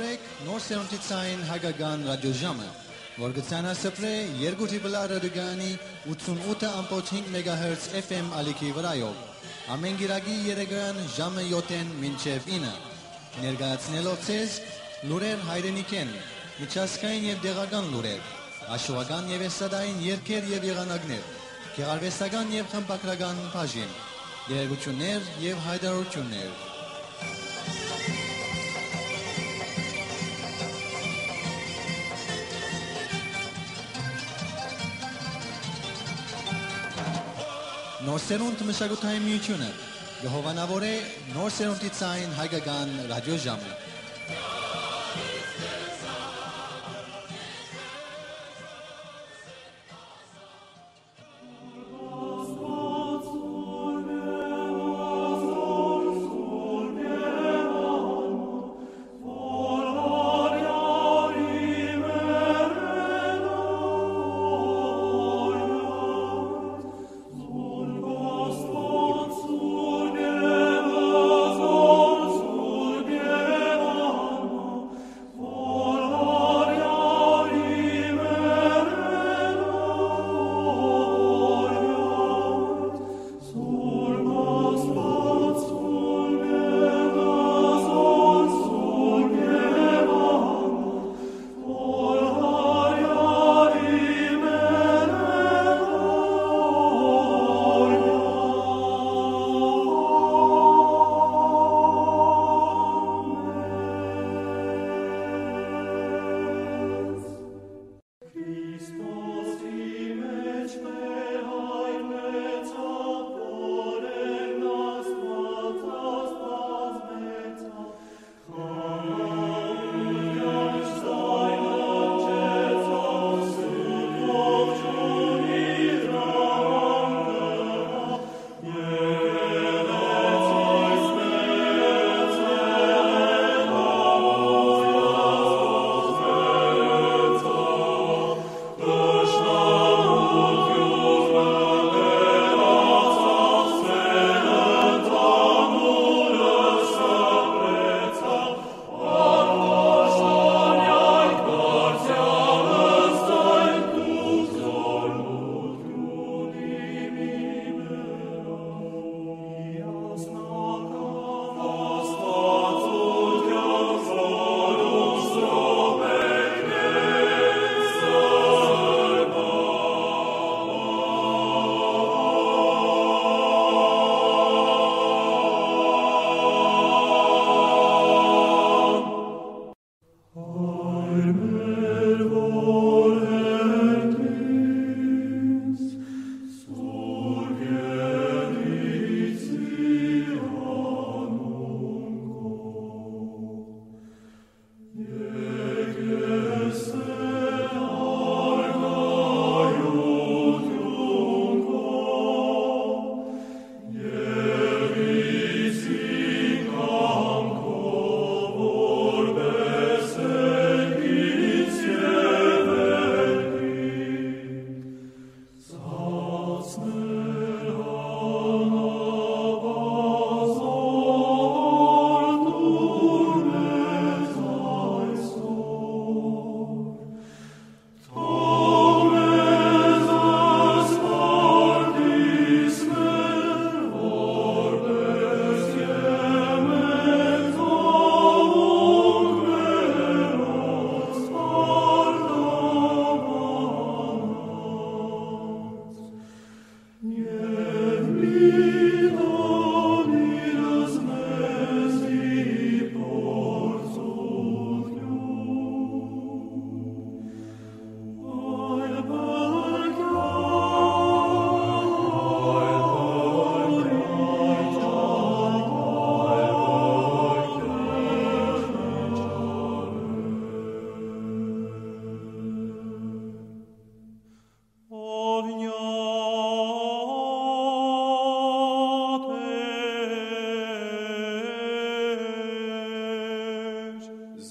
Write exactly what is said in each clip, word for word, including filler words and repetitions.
Նոր սերունդի ցային հայկական ռադիոժամը, որ կը ցանասփռէ երկու դիպլա ռադիոկայանի ութսունութ ըմբոց հինգ մեգահերց F M ալիքի վրայով, ամէն կիրակի երեկոյեան ժամը յոթ մինչեւ ինը, ներկայացնելով ձեզ լուրեր հայրենիքէն, միջազգային եւ տեղական լուրեր, հաշուական եւ էսթատային երգեր եւ եղանակներ, գեղարուեստական եւ խմբագրական բաժին, տեղեկութիւններ եւ յայտարարութիւններ։ Նոր սերունդ մշակութային միութիւնը կը հովանաւորէ նոր սերունդի ցային հայկական ռադիոժամը։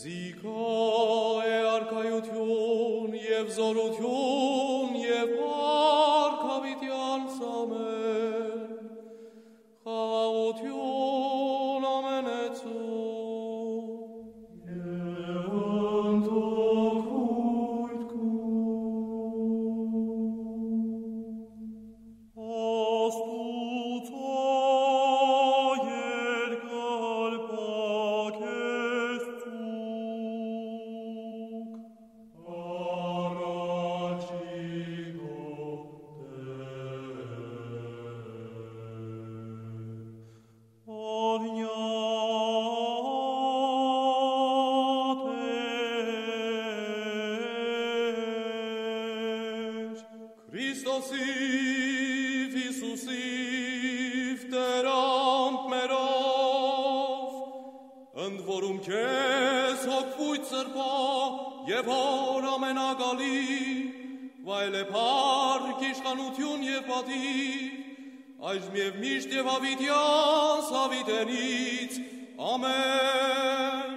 Զիքա է արքայութիւն եւ զօրութիւն եւ փառք յաւիտեանց, ամէն, խաղաղութիւն ամենեցուն։ Յիսուսիւ, Յիսուսիւ, Տէր անմերով, ընդ որում քեզ հոգ վոյթ սրբոյ եւ Հօր ամենակալի, վայելէ փառք, իշխանութիւն եւ պատիւ, այժմ եւ միշտ եւ յաւիտեանց յաւիտենից։ Ամէն։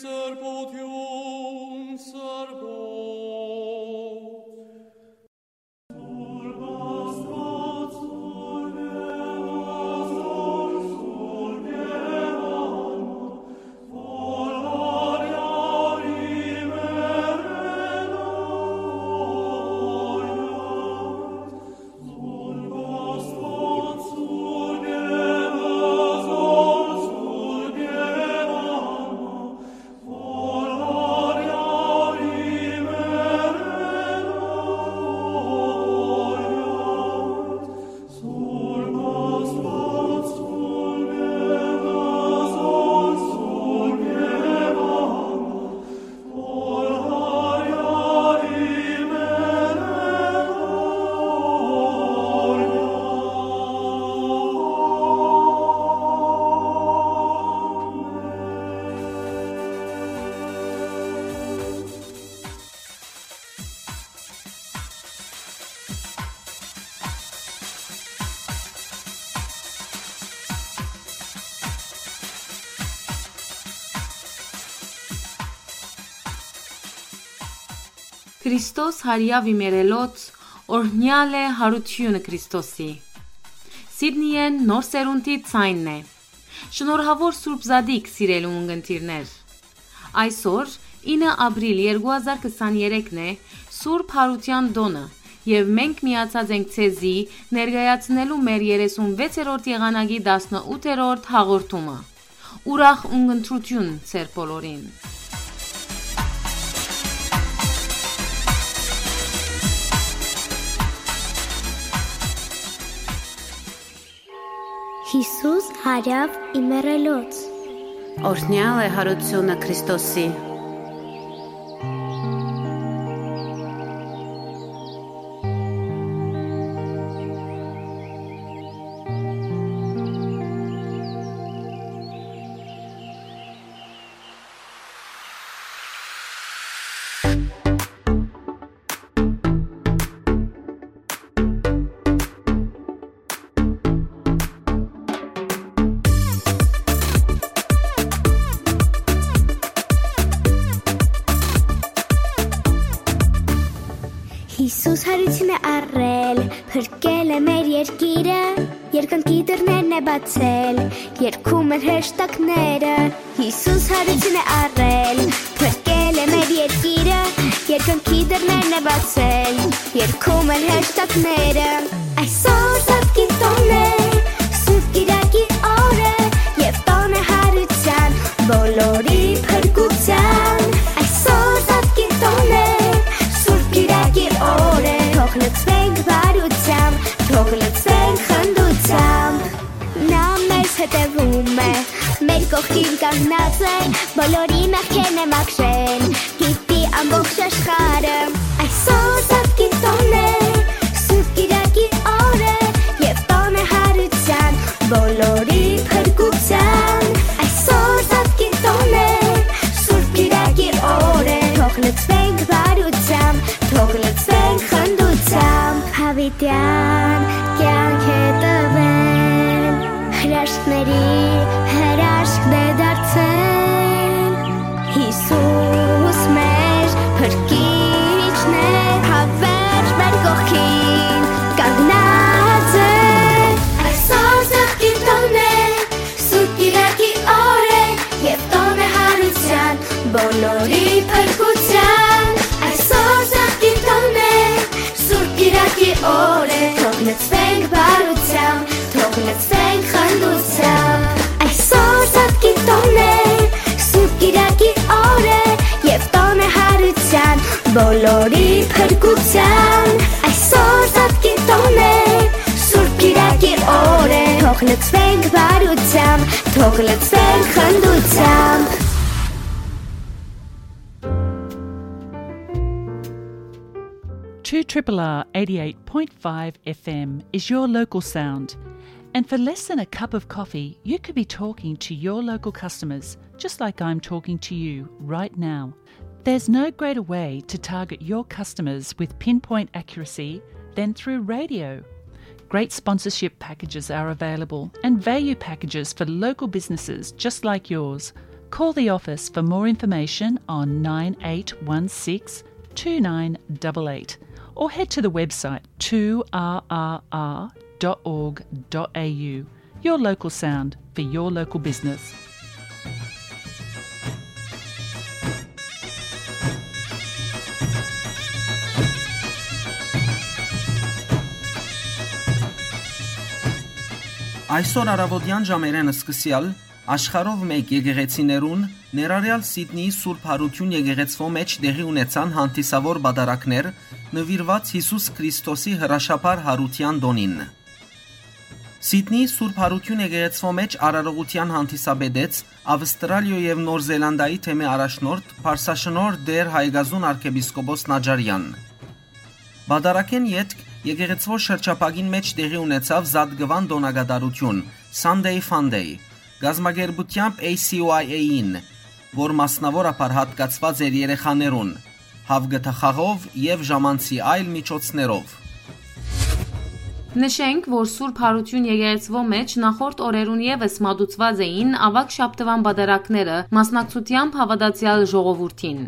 Սրբութիւն սրբոց։ Քրիստոս հարեաւ իմերելոց, օրհնեալ է յարութիւնը Քրիստոսի։ Սիդնիէն Նոր Սերունդի ձայնն է։ Շնորհաւոր Սուրբ Զատիկ, սիրելի ունգընտիրներ։ Այսօր, ինը ապրիլ երկու հազար քսաներեքն է, Սուրբ Յարութեան տօնը, եւ մենք միացած ենք ձեզի ներկայացնելու մեր երեսունվեցերորդ եղանակի տասնութերորդ հաղորդումը։ Ուրախ ունգընտրութիւն ձեր բոլորին։ Յիսուս հարեաւ իմերելոց։ Օրհնեալ է յարութիւնը Քրիստոսի։ Յիսուս յարութիւն է առել, փրկել է մեր երկիրը, երկնքի դռներն է բացել, երգում են հրեշտակները։ Յիսուս յարութիւն է առել, փրկել է մեր երկիրը, երկնքի դռներն է բացել, երգում են հրեշտակները։ Այսօր Զատկի տօն է, Սուրբ Կիրակի օր է, եւ տօն է յարութեան, բոլորի փրկութեան։ Այսօր Զատկի տօն է, Սուրբ Կիրակի օր է, թող լցվենք բարութեամբ, թող լցվենք խնդութեամբ։ Նա մեզ հետևում է, մեր կողքին կանգնած է, բոլորի մեղքերն է մաքրել, գիտի ամբողջ աշխարհը։ Այսօր Զատկի տօն է, Սուրբ Կիրակի օր է, եւ տօն է յարութեան, բոլորի փրկութեան։ Այսօր Զատկի տօն է, Սուրբ Կիրակի օր է, թող լցվենք բարութեամբ, թող լցվենք խնդութեամբ։ Յաւիտեան կեանք է տուել, հրաշքների հրաշքն է դարձել։ Յիսուս մեր փրկիչն է, հաւերժ մեր կողքին կանգնած է։ Այսօր Զատկի տօն է, Սուրբ Կիրակի օր է, եւ տօն է յարութեան, բոլորի փրկութեան։ Այսօր Զատկի տօն է, Սուրբ Կիրակի օր է, թող լցվենք բարութեամբ, թող լցվենք խնդութեամբ։ Այսօր Զատկի տօն է, Սուրբ Կիրակի օր է, եւ տօն է յարութեան, բոլորի փրկութեան։ Այսօր Զատկի տօն է, Սուրբ Լցվենք բարությամբ, թող լցվենք խնդությամբ։ Two triple R eighty-eight point five F M is your local sound. And for less than a cup of coffee, you could be talking to your local customers, just like I'm talking to you right now. There's no greater way to target your customers with pinpoint accuracy than through radio. Great sponsorship packages are available and value packages for local businesses just like yours. Call the office for more information on nine eight one six two nine double eight or head to the website two R R R dot org dot A U. Your local sound for your local business. Այսօր առաւօտեան ժամերէն սկսեալ աշխարհով մէկ եկեղեցիներուն, ներառեալ Սիդնիի Սուրբ Յարութիւն եկեղեցւոյ մէջ տեղի ունեցան հանդիսաւոր պատարագներ նուիրուած Յիսուս Քրիստոսի հրաշափառ յարութեան տօնին։ Սիդնիի Սուրբ Յարութիւն եկեղեցւոյ մէջ արարողութեան հանդիսապետեց Ավստրալիոյ եւ Նոր Զելանդիայի թեմի առաջնորդ, Փարսաշնորհ Տէր Հայկազուն արքեպիսկոպոս Նաճարեան։ Պատարագէն ետք եկեղեցւոյ շրջափակին մէջ տեղի ունեցաւ Զատկուան տօնակատարութիւն, Sunday Fun Day, կազմակերպութեամբ A C Y A-ին, որ մասնաւորաբար յատկացուած էր երեխաներուն, հաւկթախաղով եւ ժամանցի այլ միջոցներով։ Նշենք, որ Սուրբ Յարութիւն եկեղեցւոյ մէջ նախորդ օրերուն եւս մատուցուած էին աւագ շաբթուան պատարագները, մասնակցութեամբ հաւատացեալ ժողովուրդին։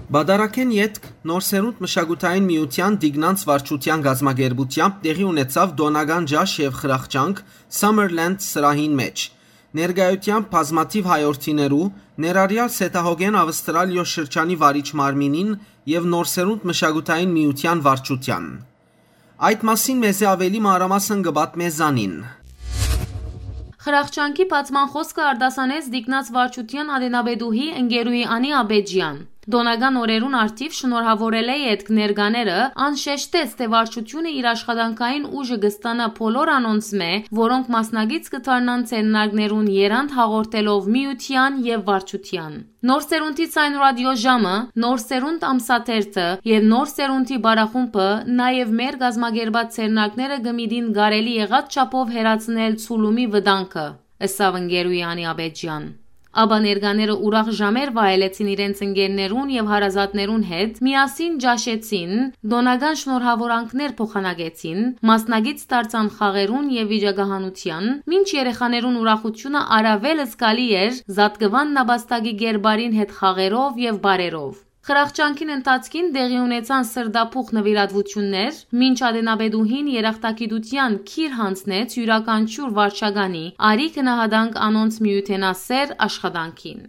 Պատարագէն ետք Նոր Սերունդ մշակութային միութեան Տիկնանց վարչութեան կազմակերպութեամբ տեղի ունեցաւ տօնական ճաշ եւ խրախճանք Summerland սրահին մէջ, ներկայութեամբ բազմաթիւ հայորդիներու, ներառեալ Սեդահոգէն Ավստրալիոյ շրջանի վարիչ մարմինին եւ Նոր Սերունդ մշակութային միութեան վարչութեան։ Այդ մասին մեզի աւելի մանրամասն կը պատմէ Զանին։ Խրախճանքի բացման խօսքը արտասանեց Տիկնանց վարչութեան ատենապետուհի ընկերուհի Անի Աբեջեան։ Տօնական օրերուն առթիւ շնորհաւորելէ ետք ներկաները, ան շեշտեց, թէ վարչութիւնը իր աշխատանքային ուժը կը ստանայ բոլոր անոնցմէ, որոնք մասնակից կը դառնան ձեռնարկներուն եռանդ հաղորդելով միութեան եւ վարչութեան։ Նոր Սերունդի Ցայնուրատիոյ ժամը, Նոր Սերունդ ամսաթերթը եւ Նոր Սերունդի պարախումբը նաեւ մեր կազմակերպած ձեռնարկները կը միտին կարելի եղած չափով հեռացնել ցուլումի վտանգը, ըսաւ ընկերուհի Անի Աբեջեան։ Ապա ներկաները ուրախ ժամեր վայելեցին իրենց ընկերներուն եւ հարազատներուն հետ, միասին ճաշեցին, տօնական շնորհաւորանքներ փոխանակեցին, մասնակից դարձան խաղերուն եւ վիճակահանութեան, մինչ երեխաներուն ուրախութիւնը առաւել զգալի էր Զատկուան նապաստակի կերպարին հետ խաղերով եւ պարերով։ Խրախճանքին ընթացքին տեղի ունեցան սրտափոխ նուիրատուութիւններ, մինչ ատենապետուհին երախտագիտութեան քիր յանձնեց իւրաքանչիւր վարչականի, արի գնահատանք անոնց միութենասէր աշխատանքին։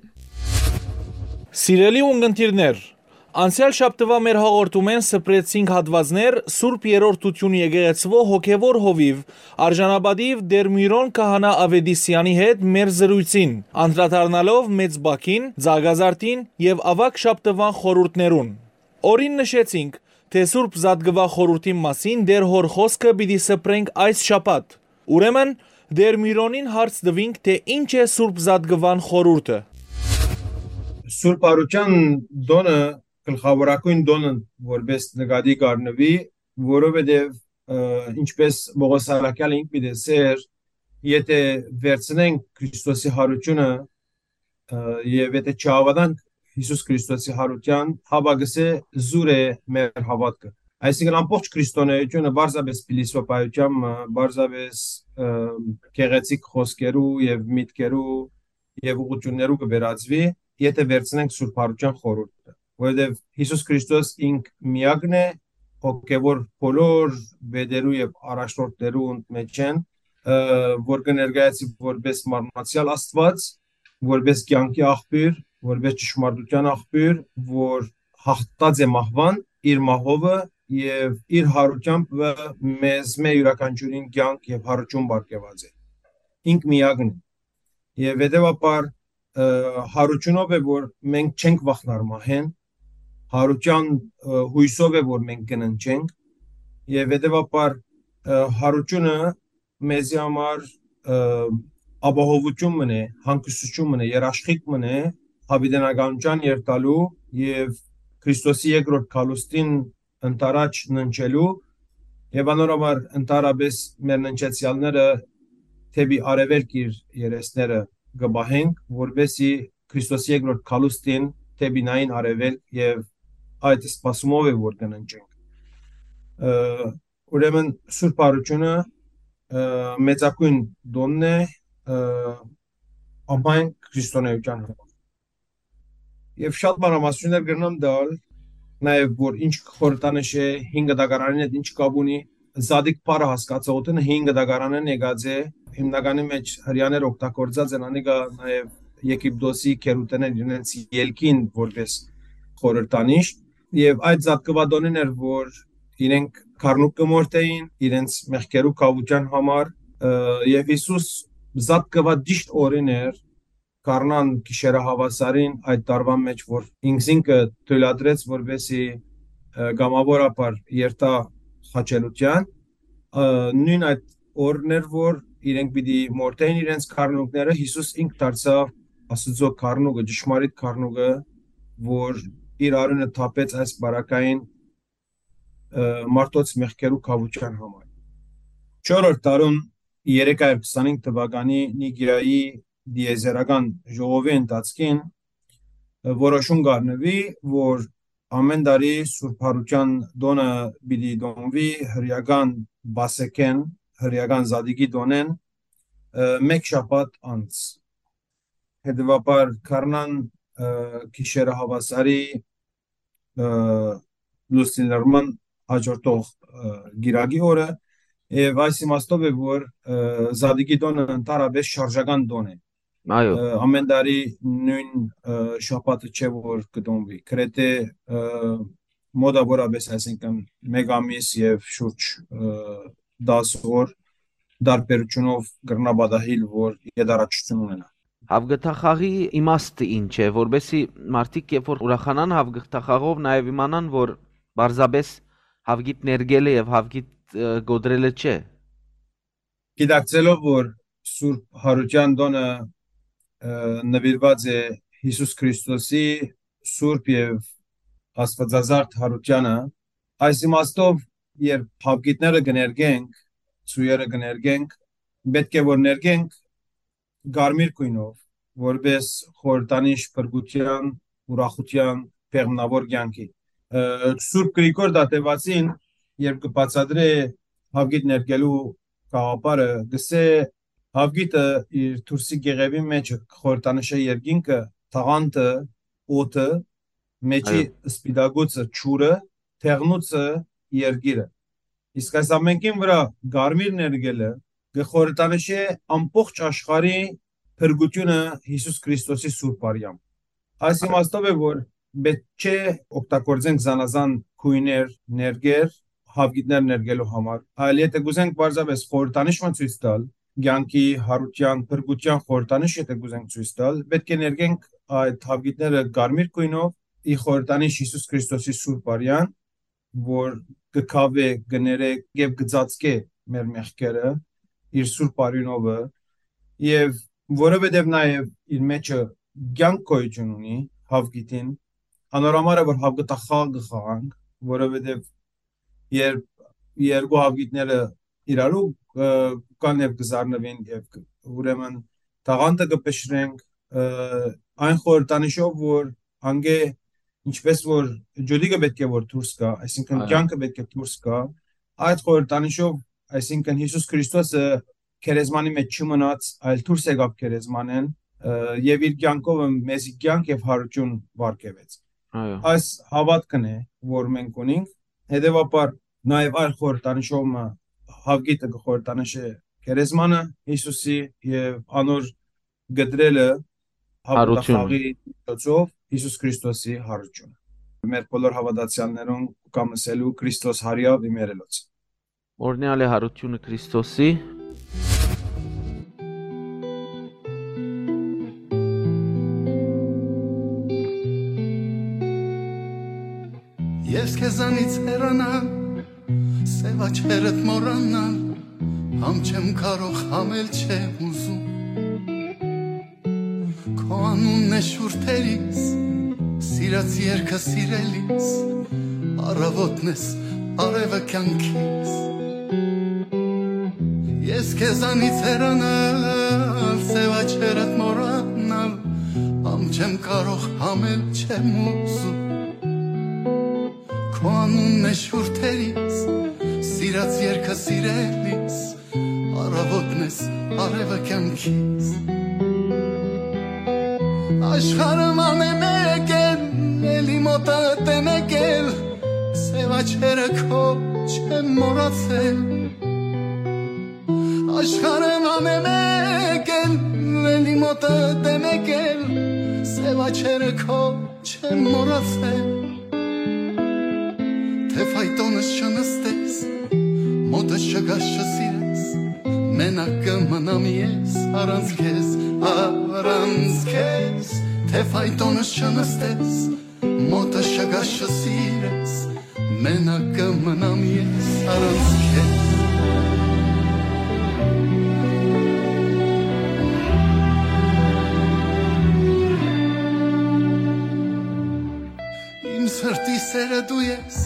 Սիրելի ունգընտիրներ, անցեալ շաբթուայ մեր հաղորդումէն սփռեցինք հատուածներ Սուրբ Երրորդութիւն եկեղեցուոյ հոգեւոր հովիւ, արժանապատիւ Տէր Միրոն քահանայ Աւետիսեանի հետ մեր զրոյցին, անդրադառնալով Մեծ Բաքին, Ծաղկազարդին եւ Աւագ շաբթուան խորհուրդներուն։ Օրին նշեցինք, թէ Սուրբ Զատկուա խորհուրդին մասին Տէր Հօր խօսքը պիտի սփռենք այս շաբաթ։ Ուրեմն, Տէր Միրոնին հարց տուինք, թէ ի՞նչ է Սուրբ Զատկուան խորհուրդը։ Սուրբ Արութեան տօնը գլխաւորագոյն տօնը որպէս նկատի կ'առնուի, որովհետեւ, ը, ինչպէս Պօղոս Առաքեալը ինք պիտի ըսէր, եթէ վերցնենք Քրիստոսի Յարութիւնը, ը, եւ եթէ չհաւատանք Յիսուս Քրիստոսի Յարութեան, հապա կ'ըսէ, զուր է մեր հաւատքը։ Այսինքն, ամբողջ քրիստոնէութիւնը պարզապէս փիլիսոփայութեան, ը, պարզապէս, ը, գեղեցիկ խօսքերու եւ միտքերու եւ ուղղութիւններու կը վերածուի, եթէ վերցնենք Սուրբ Յարութեան խորհուրդը, որովհետեւ Յիսուս Քրիստոս ինք միակն է, հոգեւոր բոլոր վետերու եւ առաջնորդներու մէջէն, ը, որ կը ներկայացի որպէս մարմնացեալ Աստուած, որպէս կեանքի աղբիւր, որպէս ճշմարտութեան աղբիւր, որ յաղթած է մահուան իր մահովը եւ իր յարութեամբ մեզմէ իւրաքանչիւրին կեանք եւ յարութիւն պարգեւած է։ Ինք միակն է։ Եւ հետեւաբար, ը, յարութիւնով է, որ մենք չենք վախնար մահէն, յարութեան, ը, յոյսով է, որ մենք կննջենք, եւ հետեւաբար, ը, յարութիւնը մեզի համար, ը, ապահովութիւն մըն է, հանգստութիւն մըն է, երաշխիք մըն է, յաւիտենականութեան երթալու եւ Քրիստոսի երկրորդ գալուստին ընդառաջ ննջելու եւ անոր համար ընդհանրապէս մեր ննջեցեալները դէպի արեւելք իր երեսները կը պահենք, որպէսզի Քրիստոսի երկրորդ գալուստին դէպի նային արեւելք եւ այդ սպասումով է որ կը ննջենք։ Ը, ուրեմն Սուրբ Յարութիւնը, ը, մեծագոյն տօնն է, ը, ամայն քրիստոնեայութեան համար։ Եւ շատ մանրամասնություններ կրնամ տալ, նաեւ որ ինչ խորհրդանիշ է, հին կտակարանին հետ ինչ կապ ունի, Զատիկ բառը հասկացողութիւնը հին կտակարանէն եկած է, հիմնականի մեջ Հրեաները օգտագործած են անիկա նաեւ Եգիպտոսի գերութենէն իրենց ելքին որպես խորհրդանիշ, եւ այդ Զատկուատոնին էր, որ իրենք գառնուկ կը մորթէին իրենց մեղքերու քաւութեան համար, ը, եւ Յիսուս Զատկուա ճիշտ օրին էր, գարնան գիշերը հաւասարին այդ տարուան մեջ, որ ինքզինքը թոյլատրեց, որպեսզի, ը, կամաւորաբար երթայ խաչելութեան, ը, նոյն այդ օրն էր, որ իրենք պիտի մորթէին իրենց գառնուկները, Յիսուս ինք դարձաւ Աստուծոյ գառնուկը, ճշմարիտ գառնուկը, որ իր արիւնը թափեց այս պարագային, ը, մարդոց մեղքերու քաւութեան համար։ Չորրորդ դարուն երեք հարիւր քսանհինգ թուականի Նիկիայի դիեզերական ժողովի ընթացքին, ը, որոշում կ'առնուի, որ ամէն տարի Սուրբ Յարութեան տօնը պիտի տոնուի հրեական Պասեքէն, հրեական Զատիկի տօնէն, ը, մէկ շաբաթ անց։ Հետեւաբար գարնան, ը, գիշերը հաւասարի, ը, լուսնի լռման հաջորդող, ը, կիրակի օրը, եւ այս իմաստով է, որ, ը, Զատիկի տօնը ընդհանրապէս շարժական տօն է։ Այո։ Ը, ամէն տարի նոյն, ը, շաբաթը չէ, որ կը տոնուի։ Գրեթէ, ը, մոտաւորապէս, այսինքն, մէկ ամիս եւ շուրջ, ը, տաս օր տարբերութիւնով կրնայ պատահիլ, որ յետառաջութիւն ունենայ։ Հաւգթախաղի իմաստը ի՞նչ է, որպեսզի մարդիկ, երբ որ ուրախանան հաւգթախաղով, նաեւ իմանան, որ պարզապէս հաւգիտ ներկելը եւ հաւգիտ, ը, կոտրելը չէ։ Գիտակցելով, որ Սուրբ Յարութեան տօնը, ը, նուիրուած է Յիսուս Քրիստոսի սուրբ եւ աստուածազարդ յարութեանը, այս իմաստով, երբ հաւգիտները կը ներկենք, ծոյերը կը ներկենք, պէտք է որ ներկենք կարմիր գոյնով, որպէս խորհրդանիշ փրկութեան, ուրախութեան, բեղմնաւոր կեանքի։ Ը, Սուրբ Գրիգոր Դատեվացին, երբ կը բացատրէ հաւգիտ ներկելու գաղափարը, կ'ըսէ, հաւգիտը իր դուրսի կեղեւին մէջ խորհրդանշ է երկինքը, թաղանթը, օդը, մէջի Այո։ սպիտակուցը, ջուրը, թեղնուցը, երկիրը։ Իսկ այս ամենքին վրայ կարմիր ներկելը կը խորհրդանշէ ամբողջ աշխարհի փրկութիւնը Յիսուս Քրիստոսի սուրբ արեան։ Այս Այո։ իմաստով է, որ պէտք չէ օգտագործենք զանազան գոյներ, ներկեր, հաւգիտներ ներկելու համար, այլ եթե կ'ուզենք պարզապէս խորհրդանիշ մը ցոյց տալ, կեանքի, յարութեան, փրկութեան խորհրդանիշ եթե կ'ուզենք ցոյց տալ, պէտք է ներկենք այդ հաւգիտները կարմիր գոյնով, ի խորհրդանիշ Յիսուս Քրիստոսի սուրբ արեան, որ կը քաւէ, կը ներէ եւ կը ծածկէ մեր մեղքերը, իր սուրբ արիւնովը, եւ որովհետեւ նաեւ իր մեջը կեանք գոյութիւն ունի հաւգիտին, անոր համար է, որ հաւգտախաղ կը խաղանք, որովհետեւ երբ երկու հաւգիտները իրարու, ը, կան եւ կը զարնուին եւ կը, ուրեմն տաղանթը կը փշրենք, ը, այն խորհրդանիշով, որ անգէ ինչպես որ ջուլիկը պէտք է որ դուրս գայ, այսինքն Այո։ կեանքը պէտք է դուրս գայ, այդ խորհրդանիշով, այսինքն Յիսուս Քրիստոսը գերեզմանի մեջ չմնաց, այլ դուրս եկաւ գերեզմանէն, ը, եւ իր կեանքով մեզի կեանք եւ յարութիւն վարկեւեց։ Այո։ Այս հաւատքն է, որ մենք ունենք, հետեւաբար նաեւ այլ խորհրդանիշով մը հաւգիտը կը խորհրդանշէ գերեզմանը Յիսուսի եւ անոր կտրելը Յարութիւնը։ հաւատախաղի միջոցով Յիսուս Քրիստոսի յարութիւնը։ Մեր բոլոր հաւատացեալներուն կամ ասելու Քրիստոս հարիաւ իմերելոց։ Օրնեալ է յարութիւնը Քրիստոսի։ Ես քեզանից հեռանալ, սև աչքերդ մոռանալ, Համ չեմ կարող, համ էլ չեմ ուզում։ Քո անունն է շուրթերիս, սիրած երկը սիրելիս, առավոտն ես, արևը կյանքիս։ Ես քեզանից հեռանալ, սեւ աչքերդ մոռանալ, համ չեմ կարող, համ էլ չեմ ուզում։ Քո անունն է շուրթերիս, սիրած երկը սիրելիս, առավոտն ես, արևը կյանքիս։ Աշխարհը ման է մեկ էլ, էլի մոտդ է մեկ էլ, սեւ աչքերը քո չեմ մոռացել։ Աշխարհը ման է մեկ էլ, էլի մոտդ է մեկ էլ, սեւ աչքերը քո չեմ մոռացել, թե ֆայտոնս չնստես, մոտս չգաս չսիրես, մենակ կը մնամ ես առանց քեզ, առանց քեզ, թե ֆայտոնս չնստես, մոտս չգաս չսիրես, մենակ կը մնամ ես առանց քեզ։ Իմ սրտի սերը դու ես,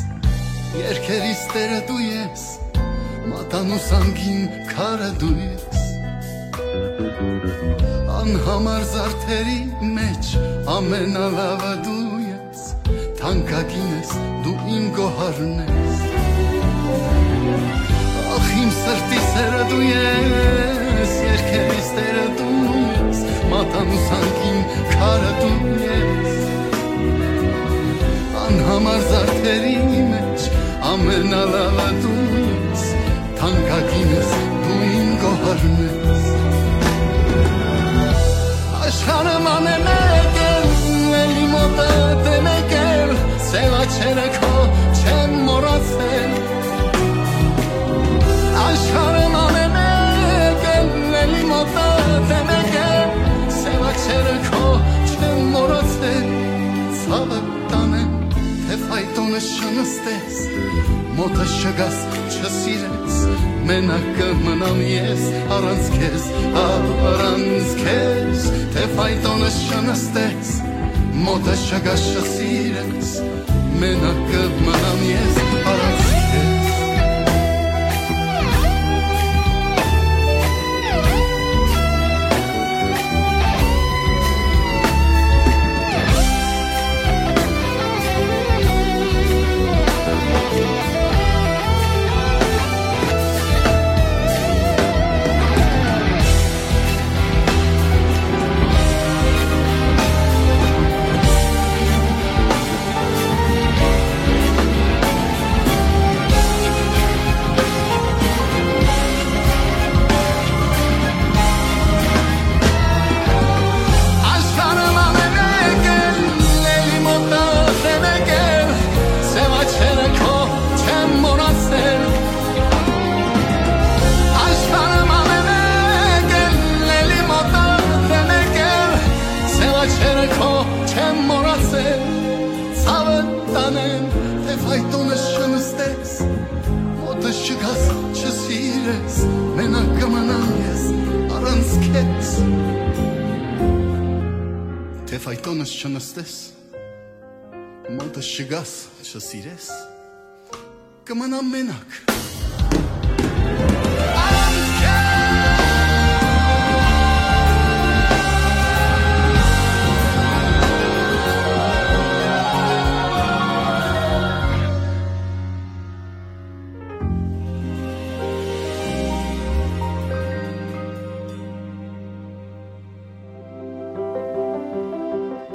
երկերիս տերը դու ես, մատանուս անգին քարը դու ես։ Անհամար զարդերի մեջ ամենալավը դու ես, թանկագին ես, դու իմ գոհարն ես։ Ախ, իմ սրտի սերը դու ես, երկերիս տերը դու ես, մատանուս անգին քարը դու ես։ Անհամար զարդերի մեջ ամենալավը դու ես, թանկագին ես, դու իմ գոհարն ես։ Աշխարհը ման է մեկ էլ, էլի մոտդ է մեկ էլ, սեւ աչքերը քո չեմ մոռացել։ Աշխարհը ման է մեկ էլ, էլի մոտդ է մեկ էլ, սեւ աչքերը քո չեմ մոռացել։ Ցավը տանեմ, թե ֆայտոնս չնստես, մոտս չգաս, չսիրես, մենակ կը մնամ ես առանց քեզ, առանց քեզ, թե ֆայտոնս չնստես, մոտս չգաս, չսիրես, մենակ կը մնամ ես առանց քեզ։ Աշխարհը ման է մեկ էլ, էլի մոտդ է մեկ էլ, սեւ աչքերը քո չեմ մոռացել։ Աշխարհը ման է մեկ էլ, էլի մոտդ է մեկ էլ, սեւ աչքերը քո չեմ մոռացել։ Ցավը տանեմ, թե ֆայտոնս չնստես, մոտս չգաս, չսիրես, մենակ կը մնամ ես առանց քեզ։ Թե ֆայտոնս չնստես, մոտս չգաս, չսիրես, կը մնամ մենակ։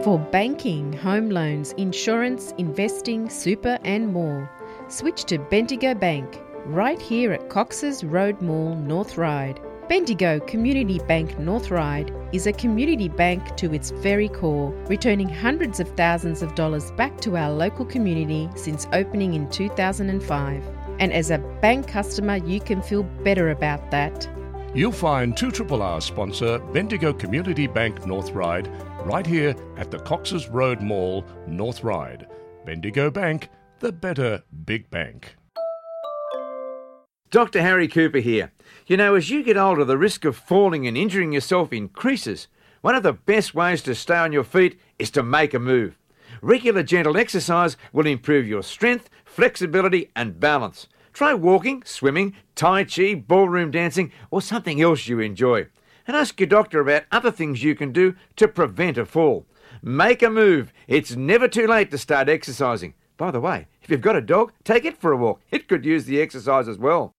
For banking, home loans, insurance, investing, super, and more, switch to Bendigo Bank, right here at Cox's Road Mall, North Ryde. Bendigo Community Bank North Ryde is a community bank to its very core, returning hundreds of thousands of dollars back to our local community since opening in two thousand and five. And as a bank customer, you can feel better about that. You'll find two triple R sponsor Bendigo Community Bank North Ryde right here at the Cox's Road Mall, North Ryde. Bendigo Bank, the better big bank. Doctor Harry Cooper here. You know, as you get older, the risk of falling and injuring yourself increases. One of the best ways to stay on your feet is to make a move. Regular gentle exercise will improve your strength, flexibility, and balance. Try walking, swimming, tai chi, ballroom dancing, or something else you enjoy. And ask your doctor about other things you can do to prevent a fall. Make a move. It's never too late to start exercising. By the way, if you've got a dog, take it for a walk. It could use the exercise as well.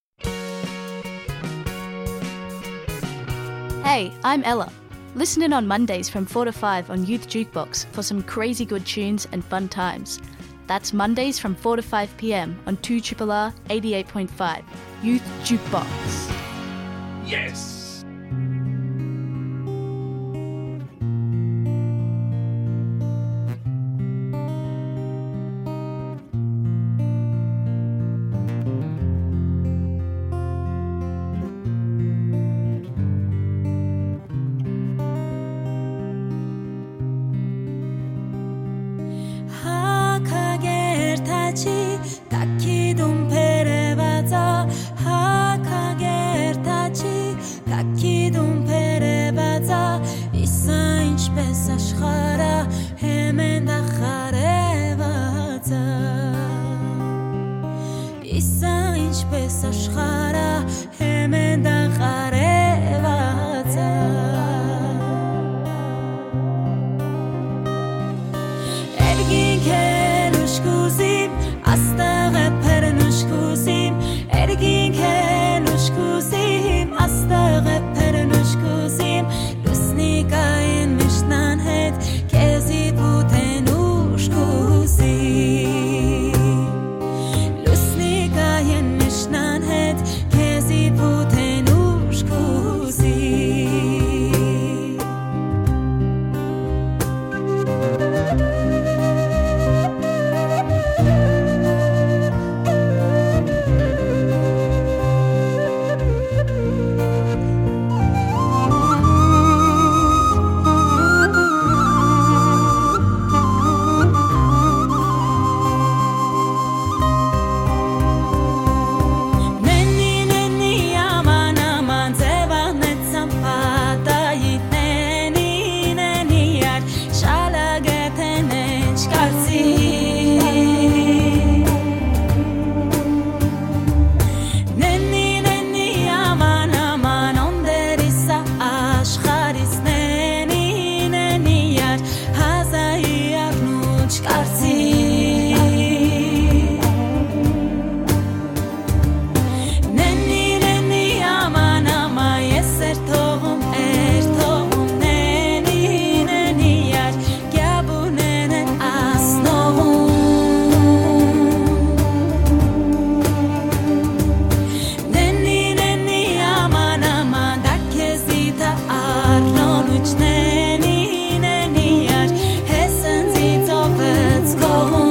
Hey, I'm Ella. Listen in on Mondays from four to five on Youth Jukebox for some crazy good tunes and fun times. That's Mondays from four to five p.m. on two triple R eighty-eight point five. Youth Jukebox. Yes! Հակագերտաչի կակի դուն բերեւածա, հակագերտաչի կակի դուն բերեւածա, իսա ինչպես աշխարհը հեմեն դախարեւածա, իսա ինչպես աշխարհը հեմեն դախարեւածա։ Երկինքէն ուշ կուզիմ, աստղը բերնուշ կուզիմ, երկինքէն ուշ կուզիմ, աստղը բերնուշ կուզիմ, լուսնի կայեն միշտան հետ, քեզի պութեն ուշ կուզիմ։ Լուսնի կայեն միշտան հետ, քեզի պութեն ուշ կուզի։ Նեննի, նեննի, աման, աման, ձեւանեցան պատայի, նենի, նենի, յար, շալագեթեն էնչ կարծի։ Նեննի, նեննի, աման, աման, օնդերիսա, աշխարհիս, նենի, նենի, յար, հազայի առնուչ կարծի։ Նեննի, նեննի, աման, աման, ես էր թողում, էր թողում, նենի, նենի, յար, կեաբունեն է ասնողում։ Նեննի, նեննի, աման, աման, դա քեզի դա առնոնուչ, նենի, նենի, յար, հեսնձի ծովեց կողում։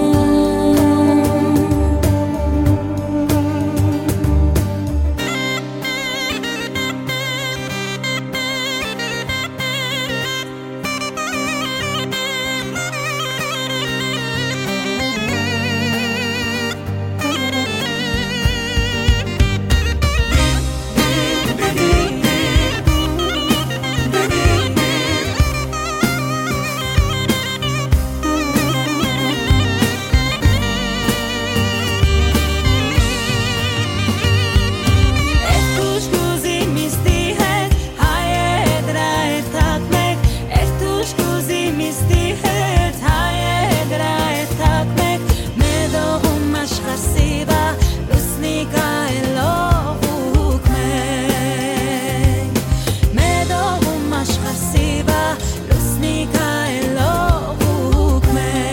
Ertuş kuzim isti het, hayedra ertak mek. Ertuş kuzim isti het, hayedra ertak mek. Medoğum aşkar siva, lusnika elo hukmek. Medoğum aşkar siva, lusnika elo hukmek.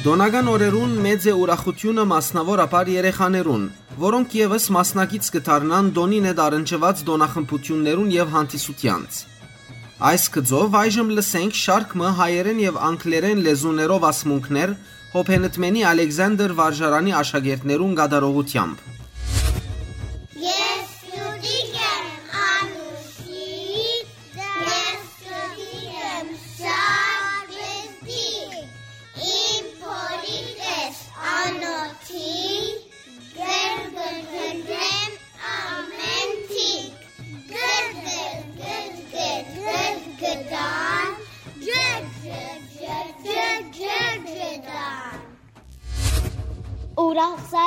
Տօնական օրերուն մեծ է ուրախութիւնը, մասնաւորաբար երեխաներուն, որոնք եւս մասնակից կը դառնան տօնին հետ առնչուած տօնախմբութիւններուն եւ հանդիսութեանց։ Այս գծով այժմ լսենք շարք մը հայերէն եւ անգլերէն լեզուներով ասմունքներ Հոբենտմենի Ալեքսանդր վարժարանի աշակերտներուն կատարողութեամբ։ Ես Սուտիկ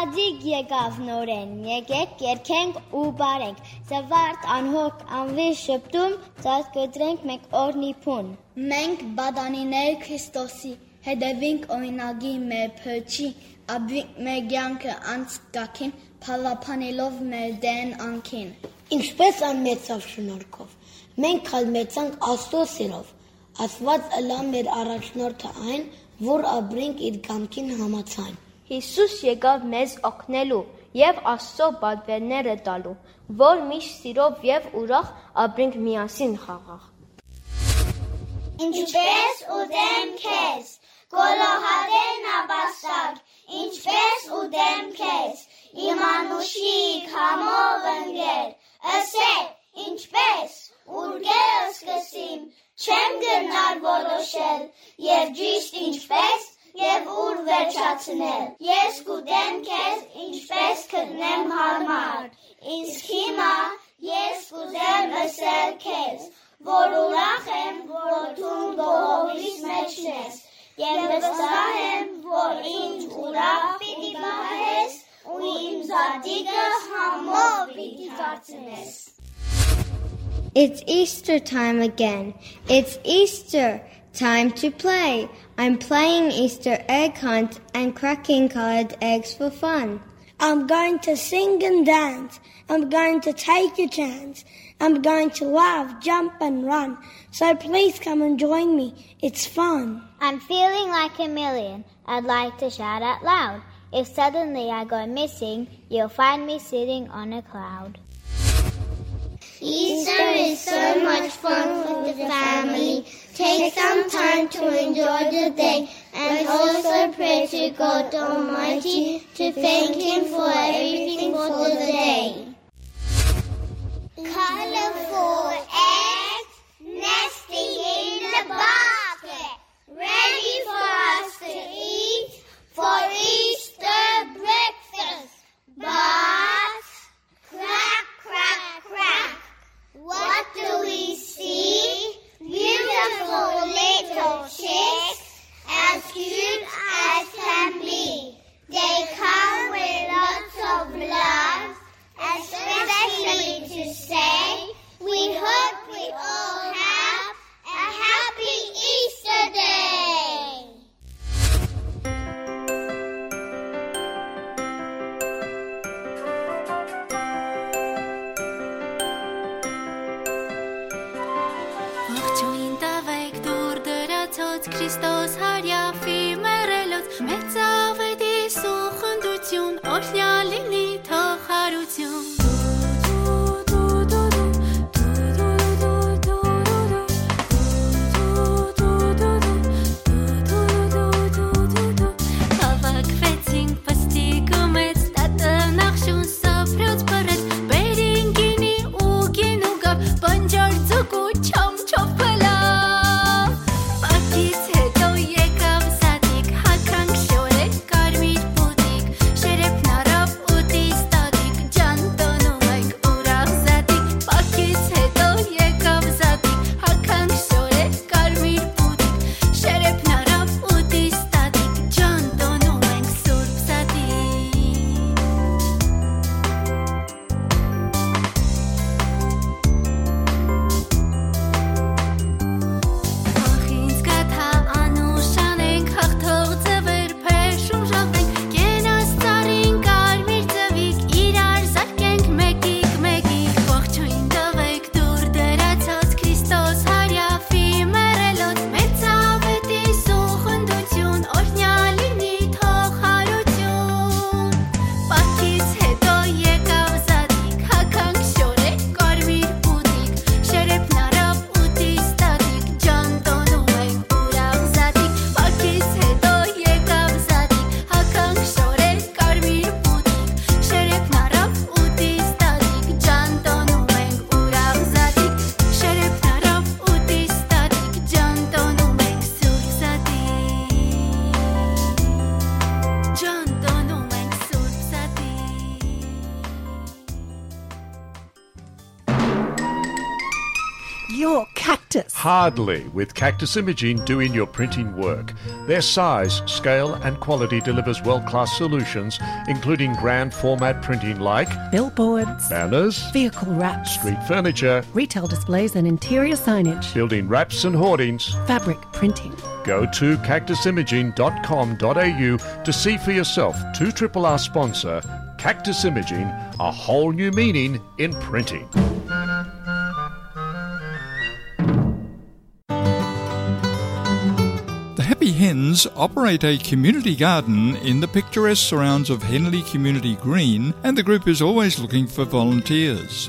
Ատիկ եկաւ նորէն, եկէք, երգենք ու պարենք, զուարթ անհոգ անվի շպտում, ծածկուտրենք մէկ օրնի բուն։ Մենք պատանիներ Քրիստոսի, հետեւինք օրինակի մեր փրկչի, ապրինք մեր կեանքը անցկակին, փառաբանելով մեր Տէրն անկին։ Ինչպէս ան մեծաւ շնորհքով, մենք ալ մեծանք Աստուծոյ սիրով, Աստուած ըլլայ մեր առաջնորդը այն, որ ապրինք իր կամքին համաձայն։ Յիսուս եկաւ մեզ օգնելու եւ Աստուծոյ պատուէրները տալու, որ միշտ սիրով եւ ուրախ ապրինք միասին խաղաղ։ Ինչպէս ուտեմ քեզ, գոլոհատէ նապաստակ, ինչպէս ուտեմ քեզ, իմ անուշիկ, համով ընկեր, ըսէ, ինչպէս, ուրկէ սկսիմ, չեմ կրնար որոշել, եւ ճիշդ ինչպէս, եւ ուր վերջացնել։ Ես կուտեմ քեզ, ինչպէս գտնեմ յարմար, իսկ հիմա ես կուզեմ ըսել քեզ, որ ուրախ եմ, որ դուն գողովիս մէջն ես, եւ վստահ եմ, որ ինձ ուրախ պիտի պահես ու իմ զատիկը համով պիտի դարձնես։ It's Easter time again. It's Easter time to play. I'm playing Easter egg hunt and cracking colored eggs for fun. I'm going to sing and dance. I'm going to take a chance. I'm going to laugh, jump, and run. So please come and join me. It's fun. I'm feeling like a million. I'd like to shout out loud. If suddenly I go missing, you'll find me sitting on a cloud. Easter is so much fun with the family. Take some time to enjoy the day and also pray to God Almighty to thank Him for everything for the day. Colorful eggs nesting in the basket, ready for us to eat for Easter breakfast. But crack, crack, crack. What do we see? Beautiful little chicks, as cute as can be. They come with lots of love, especially to say, we hope we all have a happy Easter day. Ողջույն տուէք դուռ դրացոց, Քրիստոս հարիաֆի մեռելոց, մեծ աւետիս ու խնդրութիւն, օրհնեալ լինի թող յարութիւն։ Հաւաքուեցինք պստիկ ու մեծ, տատը նախշուն սափրոց բռեց, բերին գինի ու գին ու գաւ, բանջար ձուկ ու չամչով փլաւ։ Պակից յետոյ եկաւ your Cactus. Hardly, with Cactus Imaging doing your printing work. Their size, scale, and quality delivers world-class solutions, including grand format printing like billboards, banners, vehicle wraps, street furniture, retail displays and interior signage, building wraps and hoardings, fabric printing. Go to cactus imaging dot com dot a u to see for yourself two triple R sponsor Cactus Imaging, a whole new meaning in printing. The Happy Hens operate a community garden in the picturesque surrounds of Henley Community Green, and the group is always looking for volunteers.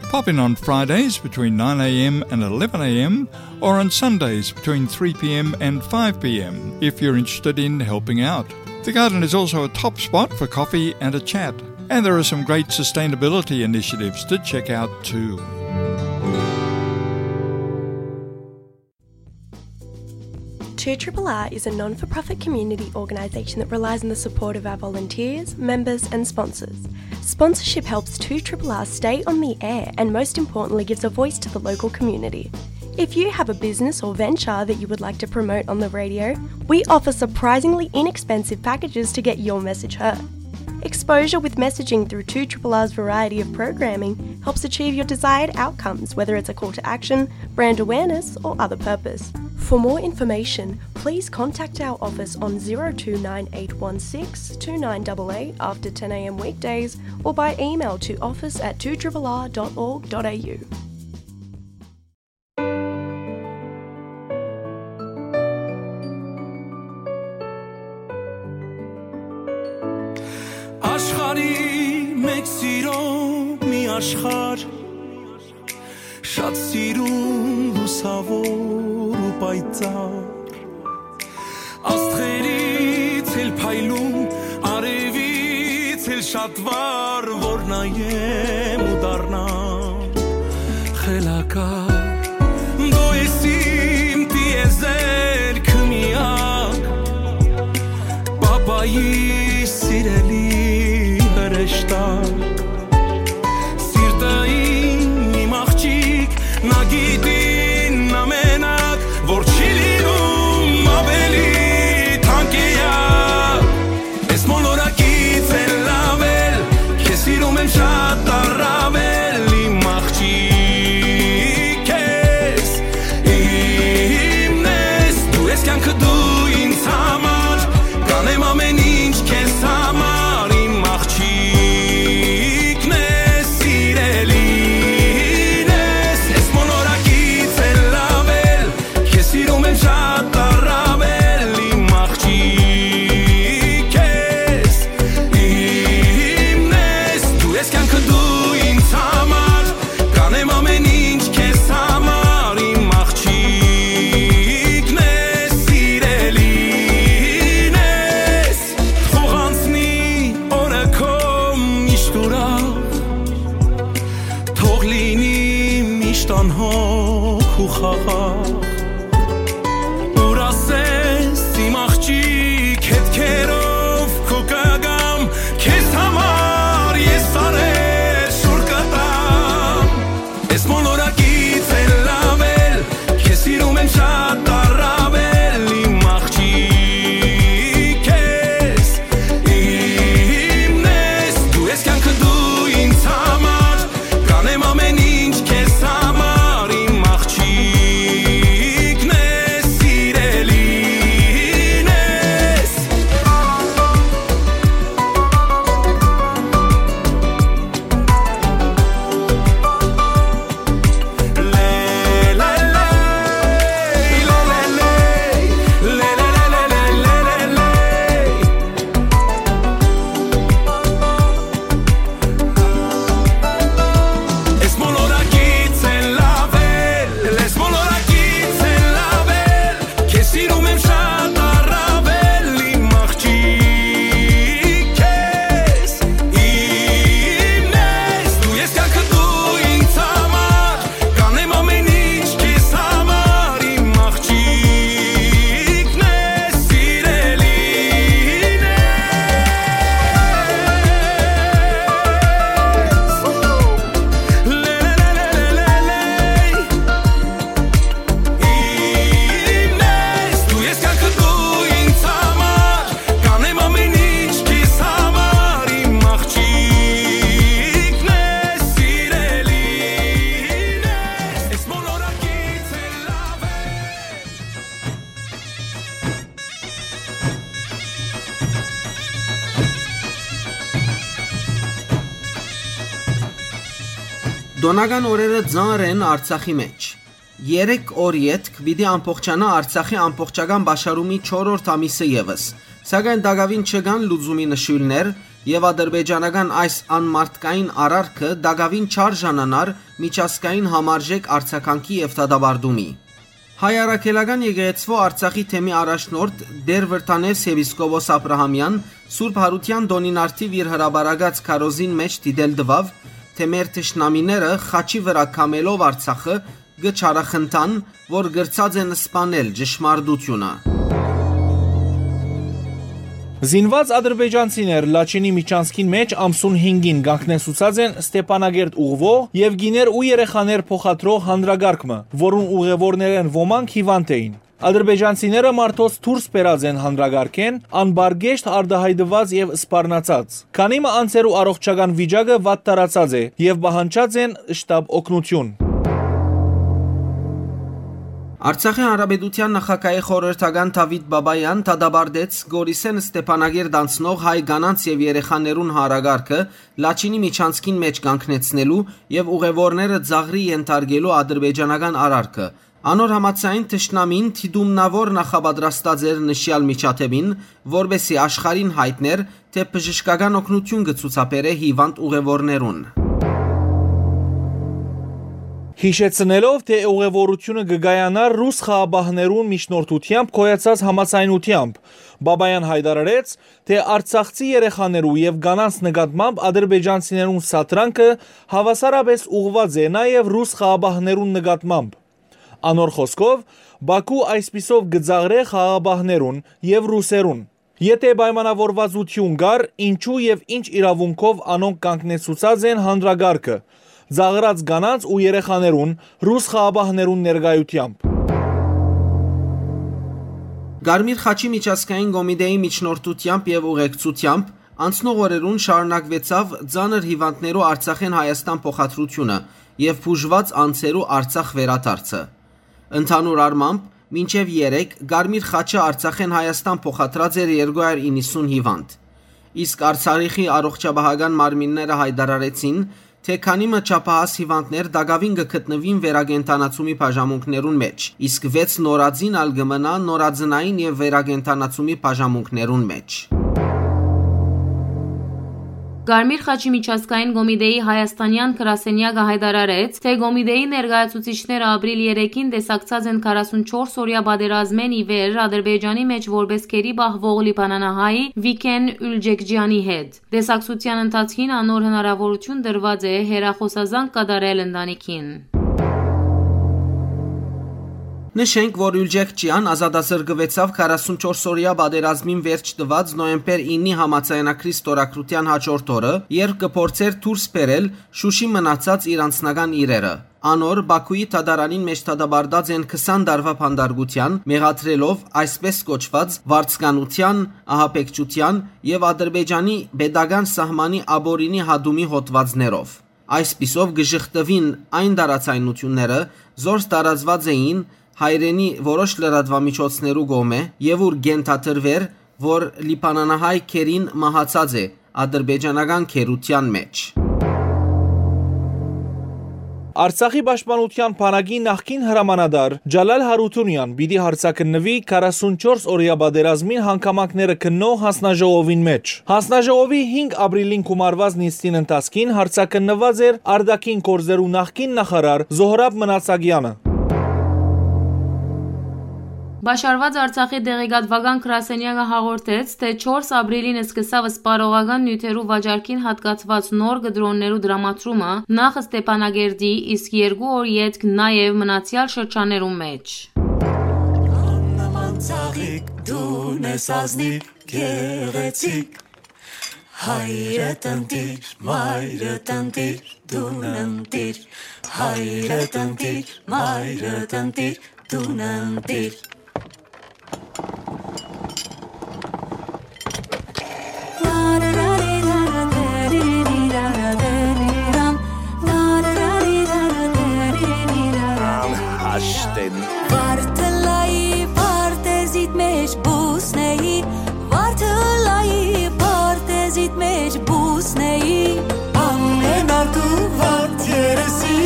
Pop in on Fridays between nine a m and eleven a m, or on Sundays between three p m and five p m if you're interested in helping out. The garden is also a top spot for coffee and a chat, and there are some great sustainability initiatives to check out too. Two R R R is a non for profit community organisation that relies on the support of our volunteers, members, and sponsors. Sponsorship helps Two R R R stay on the air and, most importantly, gives a voice to the local community. If you have a business or venture that you would like to promote on the radio, we offer surprisingly inexpensive packages to get your message heard. Exposure with messaging through Two R R R's variety of programming helps achieve your desired outcomes, whether it's a call to action, brand awareness, or other purpose. For more information, please contact our office on zero two nine eight one six two nine double eight after ten a m weekdays or by email to office at two R R R dot org dot a u. Աշխարհի մեջ սիրո մի աշխարհ, շատ սիրուն, լուսավոր ու պայծառ, աստղերից էլ փայլուն, արևից էլ շատ վառ, որ նայեմ ու դառնամ խելագար։ Դու ես իմ տիեզերքը միակ, պապայի սիրելի հրեշտակ։ Սիրտը իմ, իմ աղջիկ, նա գիտի, նա մենակ, որ չի լինում ավելի թանկ էակ։ Ես մոլորակից էլ ավել, քեզ սիրում եմ շատ առավել, իմ աղջիկ ես, իմն ես, դու ես կյանքը, դու ինձ համար, կանեմ ամեն ինչ քեզ համար, իմ աղջիկն ես, սիրելին ես, ես մոլորակից էլ ավել, քեզ սիրում եմ շատ առավել, իմ աղջիկ ես, իմն ես, դու ես կյանքը, դու ինձ համար, կանեմ ամեն ինչ քեզ համար, իմ աղջիկն ես, սիրելին ես, թող անցնի օրը քո միշտ ուրախ, թող լինի միշտ անհոգ ու խաղաղ։ Ուր ասես, իմ աղջիկ, հետքերով քու կգամ, քեզ համար ես սարեր շուռ կտամ։ Ես մոլորակից էլ ավել, քեզ սիրում եմ շատ առավել, իմ աղջիկ ես, իմն ես, դու ես կյանքը, դու ինձ համար, կանեմ ամեն ինչ քեզ համար, իմ աղջիկ Տօնական օրերը ծանր են Արցախի մէջ։ Երեք օր ետք պիտի ամբողջանայ Արցախի ամբողջական պաշարումի չորրորդ ամիսը եւս, սակայն տակաւին չկան լուծումի նշոյլներ եւ ադրբեջանական այս անմարդկային արարքը տակաւին չարժանանար միջազգային համարժեք արձագանքի եւ դատապարտումի։ Հայ առաքելական եկեղեցւոյ Արցախի թեմի առաջնորդ Տէր Վրթանէս եպիսկոպոս Աբրահամեան Սուրբ Յարութեան տօնին առթիւ իր հրապարակած քարոզին մէջ դիտել տուաւ, թէ մեր թշնամիները խաչի վրայ քամելով Արցախը կը չարախնդան, որ կրցած են սպանել ճշմարտությունը։ Զինուած ադրբեջանցիներ Լաչինի միջանցքին մէջ ամսուն հինգին կանգնեցուցած են Ստեփանագերդ ուղղուող եւ կիներ ու երեխաներ փոխադրող հանդրակարգ մը, որուն ուղեւորներէն ոմանք հիվանդ էին։ Ադրբեջանցիները մարդոց դուրս բերած են հանդրակարգէն, անպարկեշտ արտայայտուած եւ սպառնացած։ Քանի մը անձերու առողջական վիճակը վատթարացած է եւ պահանջած են շտապ օգնութիւն։ Արցախի Հանրապետութեան նախագահի խորհրդական Դաւիթ Բաբաեան դատապարտեց Գորիսէն Ստեփանագերդ անցնող հայ կանանց եւ երեխաներուն հանդրակարգը Լաչինի միջանցքին մէջ կանգնեցնելու եւ ուղեւորները ծաղրի ենթարկելու ադրբեջանական արարքը։ Անոր համաձայն, թշնամին դիտումնաւոր նախապատրաստած էր նշեալ միջադէպին, որպէսզի աշխարհին յայտնէր, թէ բժշկական օգնութիւն կը ցուցաբերէ հիվանդ ուղեւորներուն։ Յիշեցնելով, թէ ուղեւորութիւնը կը կայանար ռուս խաղաղապահներուն միջնորդութեամբ գոյացած համաձայնութեամբ, Բաբաեան յայտարարեց, թէ արցախցի երեխաներու եւ կանանց նկատմամբ ադրբեջանցիներուն սադրանքը հաւասարապէս ուղղուած է նաեւ ռուս խաղաղապահներուն նկատմամբ։ Անոր խօսքով, Բաքու այսպիսով կը ծաղրէ խաղաղապահներուն եւ ռուսերուն։ Եթէ պայմանաւորուածութիւն կար, ինչո՞ւ եւ ինչ իրաւունքով անոնք կանգնեցուցած են հանդրակարգը, ծաղրած կանանց ու երեխաներուն ռուս խաղաղապահներուն ներկայութեամբ։ Կարմիր խաչի միջազգային կոմիտեի միջնորդութեամբ եւ ուղեկցութեամբ անցնող օրերուն շարունակուեցաւ ծանր հիվանդներու Արցախէն Հայաստան փոխադրութիւնը եւ բուժուած անձերու Արցախ վերադարձը։ Ընդհանուր առմամբ, մինչեւ երեկ Կարմիր խաչը Արցախէն Հայաստան փոխադրած էր երկու հարյուր իննսուն հիվանդ։ Իսկ Արցախի առողջապահական մարմինները յայտարարեցին, թէ քանի մը չափահաս հիվանդներ տակաւին կը գտնուին վերակենդանացումի բաժանմունքներուն մէջ, իսկ վեց նորածին ալ կը մնայ նորածնային եւ վերակենդանացումի բաժանմունքներուն մէջ։ Կարմիր խաչի միջազգային կոմիտեի հայաստանեան գրասենեակը յայտարարեց, թէ կոմիտեի ներկայացուցիչները ապրիլ երեքին տեսակցած են քառասունչորս օրեայ պատերազմէն ի վեր Ադրբեջանի մէջ որպէս գերի պահուող լիբանանահայ Վիքեն Ուլջեքջեանի հետ։ Տեսակցութեան ընթացքին անոր հնարաւորութիւն տրուած է հեռախօսազանգ կատարել ընտանիքին։ Նշենք, որ Ուլջեքջեան ազատազրկուեցաւ քառասունչորս օրեայ պատերազմին վերջ տուած նոյեմբեր իննի համաձայնագրի ստորագրութեան յաջորդ օրը, երբ կը փորձէր դուրս բերել Շուշի մնացած իր անձնական իրերը։ Անոր Բաքուի դատարանին մէջ դատապարտած են քսան տարուայ բանտարկութեան, մեղադրելով այսպէս կոչուած վարձկանութեան, ահաբեկչութեան եւ Ադրբեջանի պետական սահմանի ապօրինի հատումի հոդվածներով։ Այսպիսով կը ժխտուին այն տարաձայնությունները, զորս տարածուած էին հայրենի որոշ լրատուամիջոցներու կողմէ եւ ուր կենթադրուէր, որ լիբանանահայ գերին մահացած է ադրբեջանական գերութեան մէջ։ Արցախի պաշտպանութեան բանակի նախկին հրամանատար Ջալալ Հարութունեան պիտի հարցաքննուի քառասունչորս օրեայ պատերազմին հանգամանքները քննող հանձնաժողովին մէջ։ Հանձնաժողովի հինգ ապրիլին գումարուած նիստին ընթացքին հարցաքննուած էր արտաքին գործերու նախկին նախարար Զոհրաբ Մնացագեանը։ Պաշարուած Արցախի տեղեկատուական գրասենյակը հաղորդեց, թէ չորս ապրիլին սկսաւ սպառողական նիւթերու վաճառքին յատկացուած նոր կտրոններու տրամադրումը նախ Ստեփանագերդի, իսկ երկու օր ետք նաեւ մնացեալ շրջաններու մէջ։ Աննման ծաղիկ դուն ես ազնիվ գեղեցիկ, հայրդ ընտիր, մայրդ ընտիր, դուն ընտիր, հայրդ ընտիր, մայրդ ընտիր, դուն ընտիր։ Անհաշտ են։ Վարդը լայի պարտեզիդ մեջ բուսնեի, վարդը լայի պարտեզիդ մեջ բուսնեի, ամեն արտու վարդ երեսի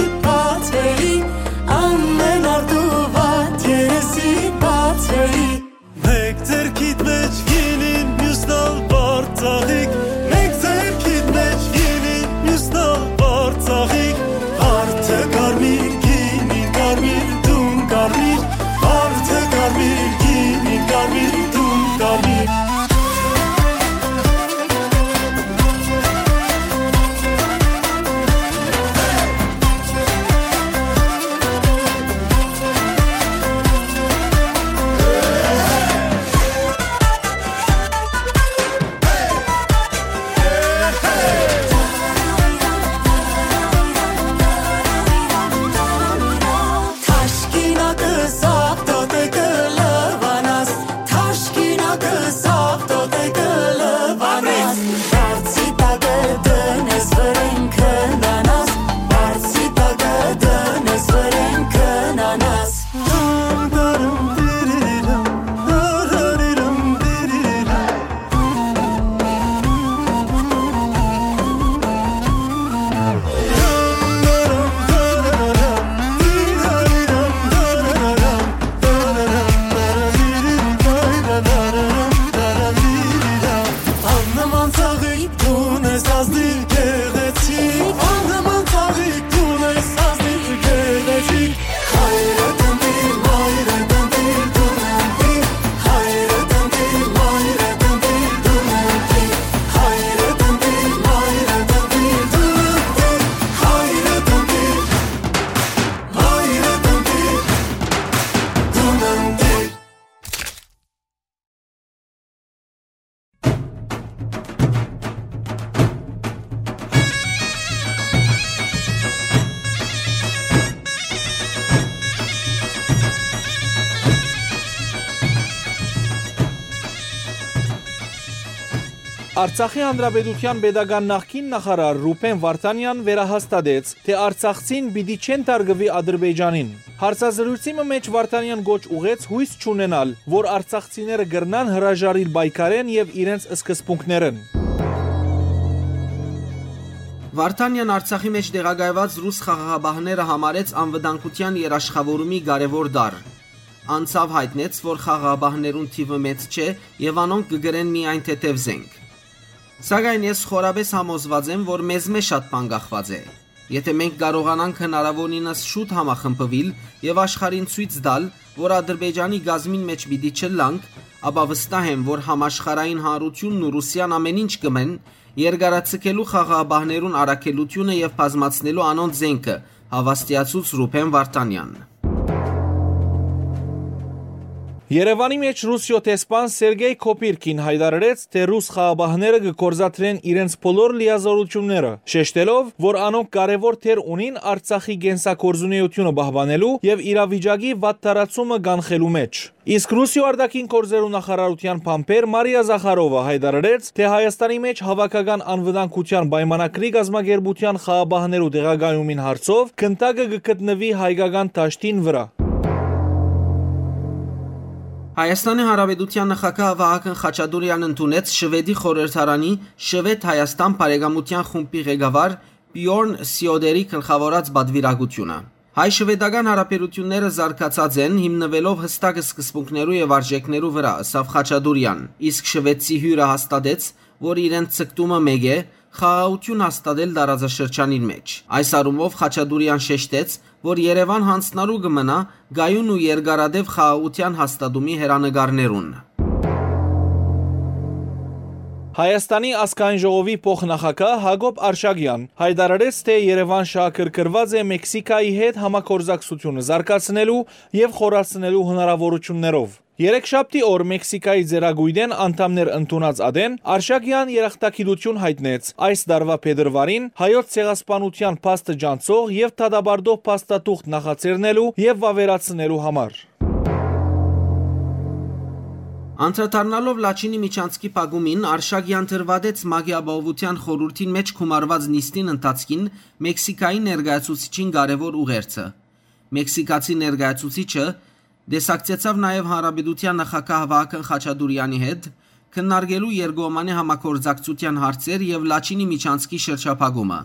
Արցախի Հանրապետութեան պետական նախկին նախարար Ռուբեն Վարդանեան վերահաստատեց, թէ արցախցին պիտի չեն թարգուի Ադրբեջանին։ Հարցազրոյցի մը մէջ Վարդանեան կոչ ուղղեց յոյս չունենալ, որ արցախցիները կրնան հրաժարիլ պայքարէն եւ իրենց սկզբունքներէն։ Վարդանեան Արցախի մէջ տեղակայուած ռուս խաղաղապահները համարեց անվտանգութեան երաշխաւորումի կարեւոր տարր։ Անցաւ յայտնեց, որ խաղաղապահներուն թիւը մեծ չէ եւ անոնք կը կրեն միայն թեթեւ զենք։ Սակայն ես խորապէս համոզուած եմ, որ մեզմէ շատ բան կախուած է։ Եթէ մենք կարողանանք հնարաւորինս շուտ համախմբուիլ եւ աշխարհին ցոյց տալ, որ Ադրբեջանի կազմին մէջ պիտի չըլլանք, ապա վստահ եմ, որ համաշխարհային հանրութիւնն ու Ռուսիան ամեն ինչ կ'ընեն՝ երկարաձգելու խաղաղապահներուն առաքելութիւնը եւ բազմացնելու անոնց զէնքը, հաւաստիացուց Ռուբեն Վարդանեան։ Երեւանի մէջ Ռուսիոյ դեսպան Սերգեյ Քոփիրքին յայտարարեց, թէ ռուս խաղապահները կը գործադրեն իրենց բոլոր լիազօրութիւնները, շեշտելով, որ անոնք կարեւոր դեր ունին Արցախի կենսագործունեութիւնը պահպանելու եւ իրավիճակի վատ տարածումը կանխելու մէջ։ Իսկ Ռուսիոյ արտաքին գործերու նախարարութեան բանբեր Մարիա Զախարովա յայտարարեց, թէ Հայաստանի մէջ հաւաքական անվտանգութեան պայմանագրի կազմակերպութեան խաղապահներու տեղակայումին հարցով գնդակը կը գտնուի հայկական դաշտին վրայ։ Հայաստանի Հանրապետութեան նախագահ Վահագն Խաչատուրեան ընդունեց Շուէդի խորհրդարանի Շուէդ-Հայաստան բարեկամութեան խումբի ղեկավար Պիորն Սիոդերի գլխաւորած պատուիրակութիւնը։ Հայ-շուէդական հարաբերութիւնները զարգացած են՝ հիմնուելով հստակ սկզբունքներու եւ արժէքներու վրայ, ըսաւ Խաչատուրեան, իսկ շուէդցի հիւրը հաստատեց, որ իրենց ձգտումը մէկ է՝ խաղաղութիւն հաստատել տարածաշրջանին մէջ։ Այս առումով Խաչատուրեան շեշտեց, որ Երեւան յանձնառու կը մնայ կայուն ու երկարատեւ խաղաղութեան հաստատումի հեռանկարներուն։ Հայաստանի ազգային ժողովի փոխնախագահ Յակոբ Արշակեան յայտարարեց, թէ Երեւան շահագրգռուած է Մեքսիքայի հետ համագործակցութիւնը զարգացնելու եւ խորացնելու հնարաւորութիւններով։ Երեքշաբթի օր Մեքսիքայի ծերակոյտէն անդամներ ընդունած ատեն Արշակեան երախտագիտութիւն յայտնեց այս տարուայ փետրուարին հայոց ցեղասպանութեան փաստը ճանչցող եւ դատապարտող փաստաթուղթ նախաձեռնելու եւ վաւերացնելու համար։ Անդրադառնալով Լաչինի միջանցքի փակումին, Արշակեան դրուատեց ՄԱԿ-ի Ապահովութեան խորհուրդին մէջ գումարուած նիստին ընթացքին Մեքսիքայի ներկայացուցիչին կարեւոր ուղերձը։ Մեքսիքացի ներկայացուցիչը տեսակցեցաւ նաեւ Հանրապետութեան նախագահ Վահագն Խաչատուրեանի հետ՝ քննարկելու երկկողմանի համագործակցութեան հարցեր եւ Լաչինի միջանցքի շրջափակումը։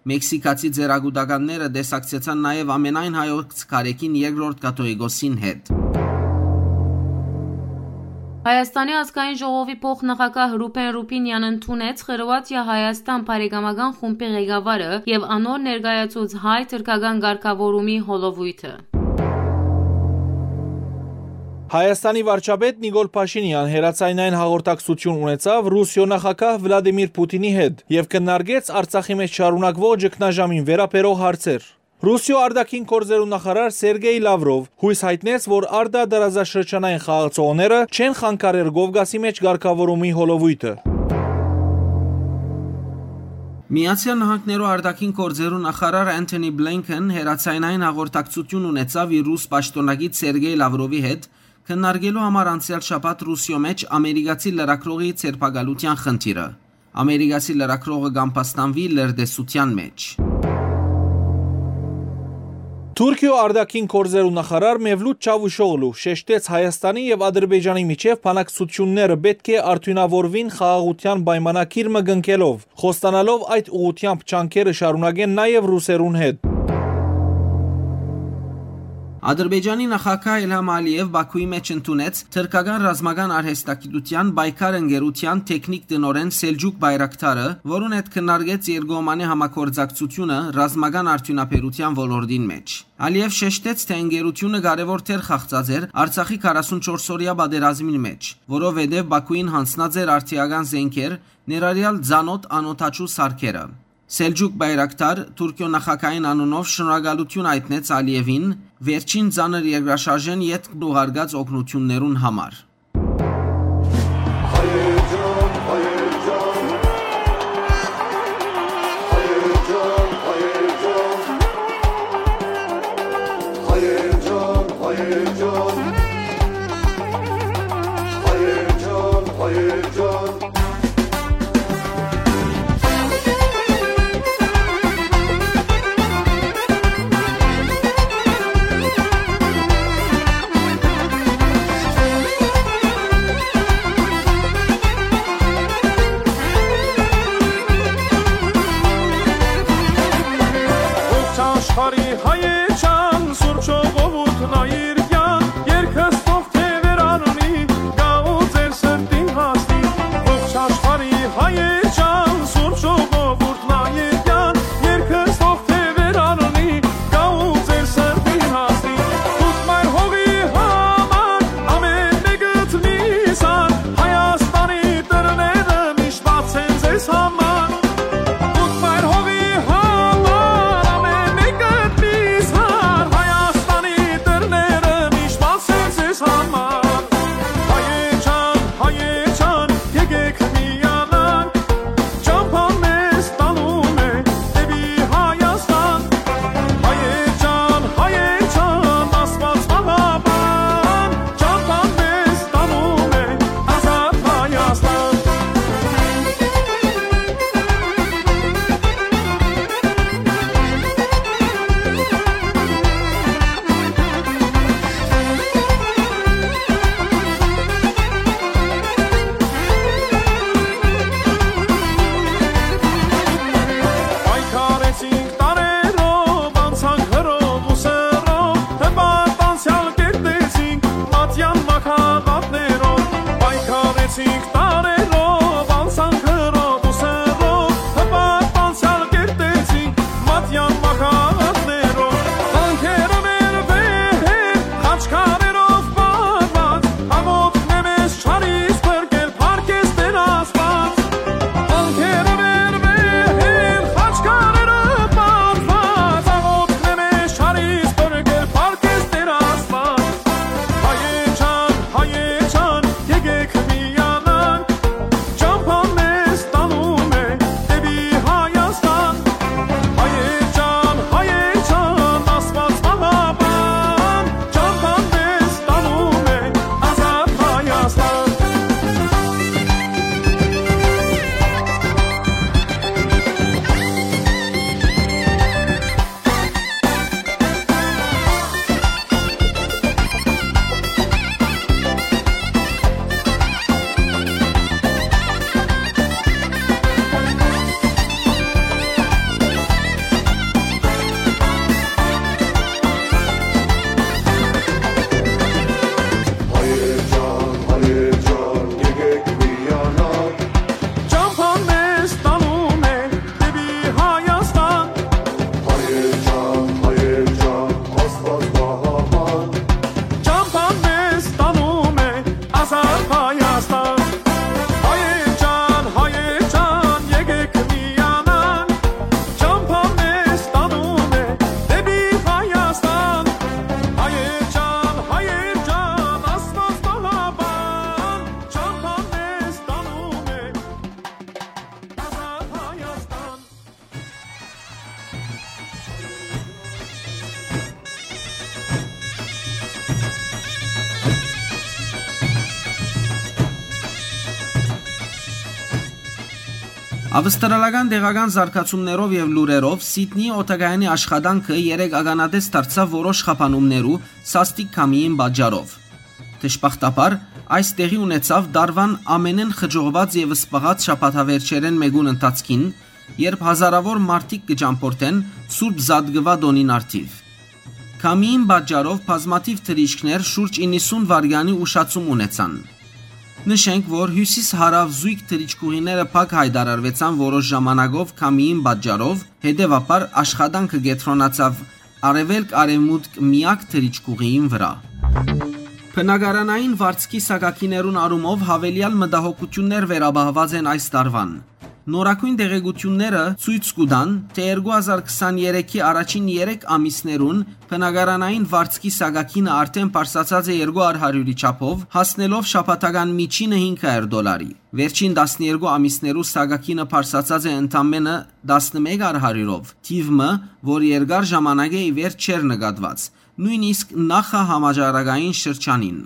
Մեքսիքացի ծերակուտականները տեսակցեցան նաեւ ամենայն հայոց քարէքին երկրորդ կաթողիկոսին հետ։ Հայաստանի ազգային ժողովի փոխնախագահ Ռուբեն Ռուբինեան ընդունեց Խրուաթիա-Հայաստան բարեկամական խումբի ղեկավարը եւ անոր ներկայացուց հայ-թրքական կարգաւորումի հոլովոյթը։ Հայաստանի վարչապետ Նիկոլ Փաշինեան հեռաձայնային հաղորդակցութիւն ունեցաւ Ռուսիոյ նախագահ Վլադիմիր Պուտինի հետ եւ քննարկեց Արցախի մէջ շարունակուող ճգնաժամին վերաբերող հարցեր։ Ռուսիոյ արտաքին գործերու նախարար Սերգեյ Լավրով յոյս յայտնեց, որ արտատարածաշրջանային խաղացողները չեն խանգարեր Կովկասի մէջ կարգաւորումի հոլովոյթը։ Միացեալ Նահանգներու արտաքին գործերու նախարար Անթոնի Բլինքեն հեռաձայնային հաղորդակցութիւն ունեցաւ իր ռուս պաշտօնակից Սերգեյ Լավրովի հետ՝ քննարկելու համար անցեալ շաբաթ Ռուսիոյ մէջ ամերիկացի լրագրողի ձերբակալութեան խնդիրը։ Ամերիկացի լրագրողը կ'ամբաստանուի լրտեսութեան մէջ։ Թուրքիոյ արտաքին գործերու նախարար Մևլութ Չավուշօղլու շեշտեց Հայաստանի եւ Ադրբեջանի միջեւ բանակցութիւնները պէտք է արդիւնաւորուին խաղաղութեան պայմանագիր մը կնքելով, խոստանալով այդ ուղղութեամբ ջանքերը շարունակեն նաեւ ռուսերուն հետ։ Ադրբեջանի նախագահ Իլհամ Ալիեւ Բաքուի մէջ ընդունեց թրքական ռազմական արհեստագիտութեան պայքար ընկերութեան թեքնիկ տնօրէն Սելջուկ Բայրակթարը, որուն հետ քննարկեց երկկողմանի համագործակցությունը ռազմական արդիւնաբերութեան ոլորտին մէջ։ Ալիեւ շեշտեց, թէ ընկերութիւնը կարեւոր դեր խաղացած էր Արցախի քառասունչորս օրեայ պատերազմին մէջ, որովհետեւ Բաքուին յանձնած էր արդիական զէնքեր, ներառեալ ծանօթ անօդաչու սարքերը։ Սելջուկ Բայրակթար Թուրքիոյ նախագահին անունով շնորհակալութիւն յայտնեց Ալիեւին վերջին ծանր երկրաշարժէն ետք ուղարկած օգնութիւններուն համար։ Բարի հայեչան, սուրբ ժողովուրդն այրկյան, երկս թող թեւեր առնի, գա ու ձեր սրտին հասնի։ Ողջ աշխարհի հայեչան, սուրբ ժողովուրդն այրկյան, երկս թող թեւեր առնի, գա ու ձեր սրտին հասնի։ Դուք մայր հողի համար ամեն մեկդ միզան, Հայաստանի դռները միշտ բաց են ձեզ համար։ Դուք մայր հողի համար ամեն մեկդ միզան, Հայաստանի դռները միշտ բաց են ձեզ համար։ Հայեչան, հայեչան, եկեք միանանք, ճամփան մեզ տանում է դեպի Հայաստան։ Հայեչան, հայեչան, Աստված պահապան, ճամփան մեզ տանում է ազատ Հայաստան։ Պայքարեցինք տարերով, անցանք հրով ու սրով, հպարտ անցեալ կերտեցինք մատյան մահաբատներով։ Պայքարեցինք տարերով, անցանք հրով ու սրով, հպարտ անցեալ կերտեցինք մատյան մահաբատներով։ Վանքերը մեր վեհեր, խաչքարերով պարված, աղօթքն է մեզ չարից փրկել, փառք ես Տեր Աստված։ Անկերը մեր վեհեր, խաչքարերը պարզված, աղօթքն է մեզ չարից փրկել, փառք ես Տեր Աստված։ Հայեչան, հայեչան, եկեք միանանք, ճամփան մեզ տանում է դեպի Հայաստան։ Հայեչան, հայեչան, Աստված պահապան, ճամփան մեզ տանում է ազատ Հայաստան։ Հայեր ջան, հայեր ջան, եկեք միանանք, ճամփան մեզ տանում է դեպի Հայաստան։ Հայեր ջան, հայեր ջան, Աստված պահապան, ճամփան մեզ տանում է ազատ Հայաստան։ Հայեր ջան, հայեր ջան, եկեք միանանք, ճամփան մեզ տանում է դեպի Հայաստան։ Հայեր ջան, հայեր ջան, Աստված պահապան, ճամփան մեզ տանում է ազատ Հայաստան։ Ավստրալական տեղական զարգացումներով եւ լուրերով Սիդնիի օդակայանի աշխատանքը երեկ ականատես դարձաւ որոշ խափանումներու սաստիկ քամիին պատճառով։ Դժբախտաբար, այս տեղի ունեցաւ տարուան ամենէն խճողուած եւ սպաղած շաբաթավերջերէն մէկուն ընթացքին, երբ հազարաւոր մարդիկ կը ճամբորդեն Սուրբ Զատկուա տօնին առթիւ։ Քամիին պատճառով բազմաթիւ թռիչքներ շուրջ իննսուն վայրկեանի ուշացում ունեցան։ Նշենք, որ հիւսիս-հարաւ զոյգ թռիչքուղիները փակ յայտարարուեցան որոշ ժամանակով քամիին պատճառով, հետեւաբար աշխատանքը կեդրոնացաւ արեւելք-արեւմուտք միակ թռիչքուղիին վրայ։ Բնակարանային վարձքի սակագիներուն առումով յաւելեալ մտահոգութիւններ վերապահուած են այս տարուան։ Նորագոյն տեղեկութիւնները ցոյց կու տան, թէ երկու հազար քսաներեքի առաջին երեք ամիսներուն բնակարանային վարձքի սակագինը արդէն բարձրացած է երկու արհարիւրի չափով, հասնելով շաբաթական միջինը հինգ հարիւր դոլարի։ Վերջին տասներկու ամիսներու սակագինը բարձրացած է ընդամենը տասնմեկ արհարիւրով, թիւ մը, որ երկար ժամանակ է ի վեր չէր նկատուած, նոյնիսկ նախահամաճարակային շրջանին։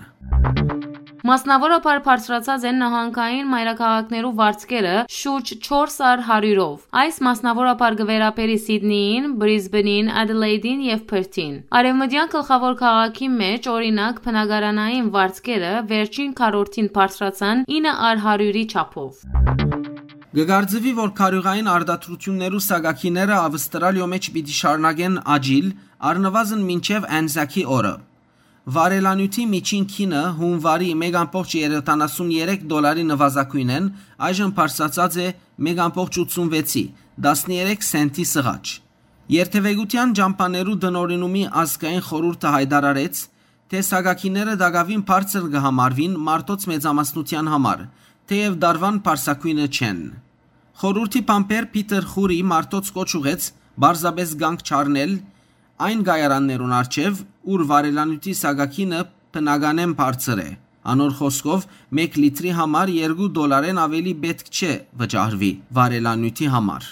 Մասնաւորաբար բարձրացած են նահանգային մայրաքաղաքներու վարձքերը շուրջ չորս արհարիւրով։ Այս մասնաւորաբար կը վերաբերի Սիդնիին, Բրիզբենին, Ադելեյդին եւ Փըրթին։ Արեւմտեան գլխաւոր քաղաքի մէջ, օրինակ, բնակարանային վարձքերը վերջին քառորդին բարձրացան ինը արհարիւրի չափով։ Կը կարծուի, որ քարիւղային արտադրութիւններու սակագիները Ավստրալիոյ մէջ պիտի շարունակեն աճիլ, առնուազն մինչեւ Անզակի օրը։ Վարելանիւթի միջին գինը հունուարի մէկ ամբողջ երեսուն երեք դոլարի նուազագոյնէն այժմ բարձրացած է մէկ ամբողջ ութսուն վեցի, տասներեք սենտի սղաճ։ Երթեւեկութեան ճամբաներու տնօրինումի ազգային խորհուրդը յայտարարեց, թէ սակագիները տակաւին բարձր կը համարուին մարդոց մեծամասնութեան համար, թէեւ դարուան բարձրագոյնը չեն։ Խորհուրդի բանբեր Փիթեր Խուրի մարդոց կոչ ուղղեց պարզապէս կանգ չառնել այն կայարաններուն առջեւ, ուր վարելանիւթի սակագինը բնականէն բարձր է։ Անոր խօսքով, մէկ լիտրի համար երկու դոլարէն աւելի պէտք չէ վճարուի վարելանիւթի համար։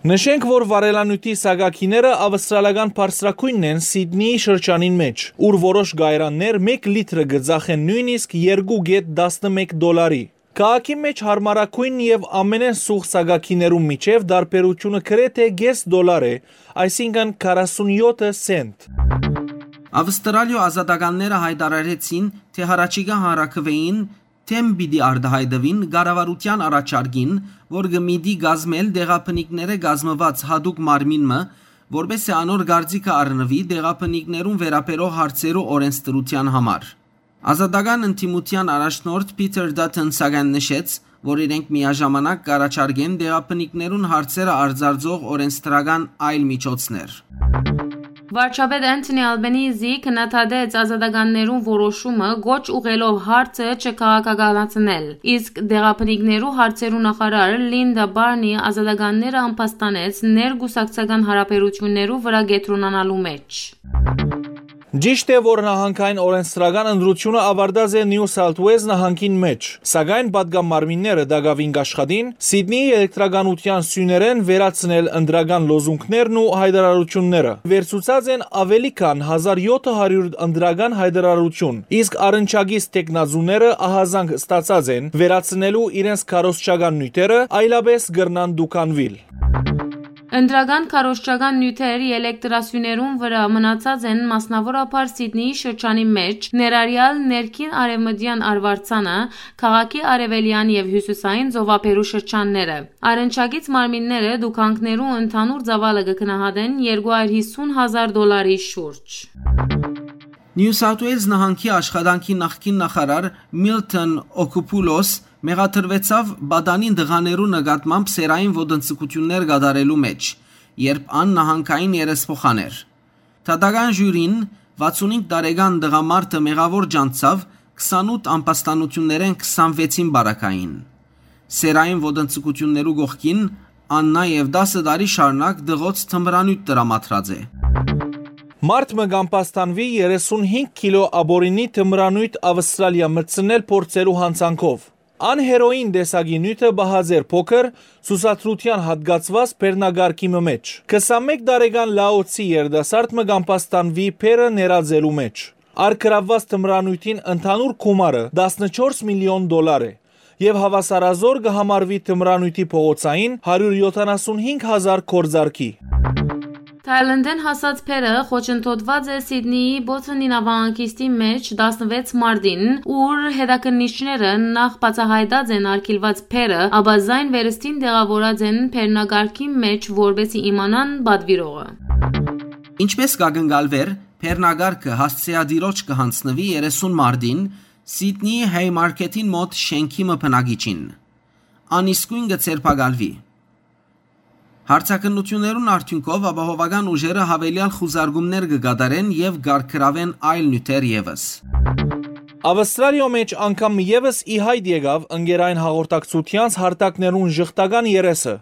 Նշենք, որ վարելանիւթի սակագիները ավստրալական բարձրագոյնն են Սիդնիի շրջանին մէջ, ուր որոշ կայարաններ մէկ լիտրը կը ծախեն նոյնիսկ երկու կետ տասնմէկ դոլարի։ Քաղաքի մէջ յարմարագոյն եւ ամենէն սուղ սակագիներուն միջեւ տարբերութիւնը գրեթէ կէս դոլար է, այսինքն քառասունյոթ սենտ։ Ավստրալիոյ ազատականները յայտարարեցին, թէ յառաջիկայ հանրաքուէին դէմ պիտի արտայայտուին կառավարութեան առաջարկին, որ կը միտի կազմել տեղաբնիկներէ կազմուած յատուկ մարմին մը, որպէս զի անոր կարծիքը առնուի տեղաբնիկներուն վերաբերող հարցերու օրէնսդրութեան համար։ Ազատական ընդդիմութեան առաջնորդ Փիթեր Դաթըն սակայն նշեց, որ իրենք միաժամանակ կառաջարկեն տեղաբնիկներուն հարցերը արձարծող օրէնսդրական այլ միջոցներ։ Վարչապետ Անթոնի Ալբենիզի քննադատեց ազատականներուն որոշումը՝ կոչ ուղղելով հարցը չքաղաքականացնել, իսկ տեղաբնիկներու հարցերու նախարար Լինդա Բարնի ազատականները ամբաստանեց ներկուսակցական հարաբերութիւններու վրայ կեդրոնանալու մէջ։ Ճիշդ է, որ նահանգային օրենսդրական ընտրութիւնը աւարտած է Նիու Սաութ Ուէլզ նահանգին մէջ, սակայն պատգամարմինները տակաւին կաշխատին Սիդնիի էլեկտրականութեան սիւներէն վերացնել ընտրական լոզունգներն ու յայտարարութիւնները։ Վերցուցած են աւելի քան հազար յոթը հարիւր ընտրական յայտարարութիւն, իսկ առնչակից թեկնածուները ահազանգ ստացած են վերացնելու իրենց քարոզչական նիւթերը, այլապէս կրնան դուքանուիլ։ Ընտրական քարոզչական նիւթեր ելեկտրասիւներուն վրայ մնացած են, մասնաւորաբար Սիդնիի շրջանի մէջ, ներառեալ ներքին արեւմտեան արուարձանը, քաղաքի արեւելեան եւ հիւսիսային ծովափերու շրջանները։ Առնչակից մարմինները դուքանքներու ընդհանուր ծաւալը կը գնահատեն երկու հարյուր հիսուն հազար դոլարի շուրջ։ Նիու Սաութ Ուէլզ նահանգի աշխատանքի նախկին նախարար Միլթոն Օքուփուլոս մեղադրուեցաւ պատանին տղաներու նկատմամբ սեռային ոտնձգութիւններ կատարելու մէջ, երբ ան նահանգային երեսփոխան էր։ Դատական ժիւրին վաթսունհինգ տարեկան տղամարդը մեղաւոր ջանցաւ քսանութ ամբաստանութիւններէն քսանվեցին պարագային։ Սեռային ոտնձգութիւններու կողքին ան նաեւ տասը տարի շարունակ դղոց թմրանիւթ տրամադրած է։ Մարդ մը կ'ամբաստանուի երեսունհինգ կիլո ապօրինի թմրանիւթ Ավստրալիա մտցնել փորձելու յանցանքով։ Ան հերոին տեսակի նիւթը պահած էր փոքր ցուցադրութեան յատկացուած բեռնակարգի մը մէջ։ Քսանմէկ տարեկան Լաոցի երիտասարդ մը կ'ամբաստանուի բեռը ներածելու մէջ։ Արգրաւուած թմրանիւթին ընդհանուր գումարը տասնչորս միլիոն դոլար է եւ հաւասարազօր կը համարուի թմրանիւթի փողոցային հարիւր յոթանասունհինգ հազար գործարքի։ Թայլանդէն հասած բեռը խոչընդոտուած է Սիդնիի Բոթոնի նաւահանգիստի մէջ տասնվեց մարտին, ուր հետաքննիչները նախ բացահայտած են արգիլուած բեռը, ապա զայն վերստին տեղաւորած են բեռնակարգի մէջ, որպէս զի իմանան պատուիրողը։ Ինչպէս կ'ակնկալուէր, բեռնակարգը հասցեատիրոջ կը յանձնուի երեսուն մարտին Սիդնիի Հայմարքեթին մօտ շէնքի մը բնակիչին։ Ան իսկոյն կը ձերբակալուի։ Հարցաքննութիւններուն արդիւնքով ապահովական ուժերը յաւելեալ խուզարկումներ կը կատարեն եւ կ'արգրաւեն այլ նիւթեր եւս։ Ավստրալիոյ մէջ անգամ եւս ի յայտ եկաւ ընկերային հաղորդակցութեանց հարթակներուն ժխտական երեսը։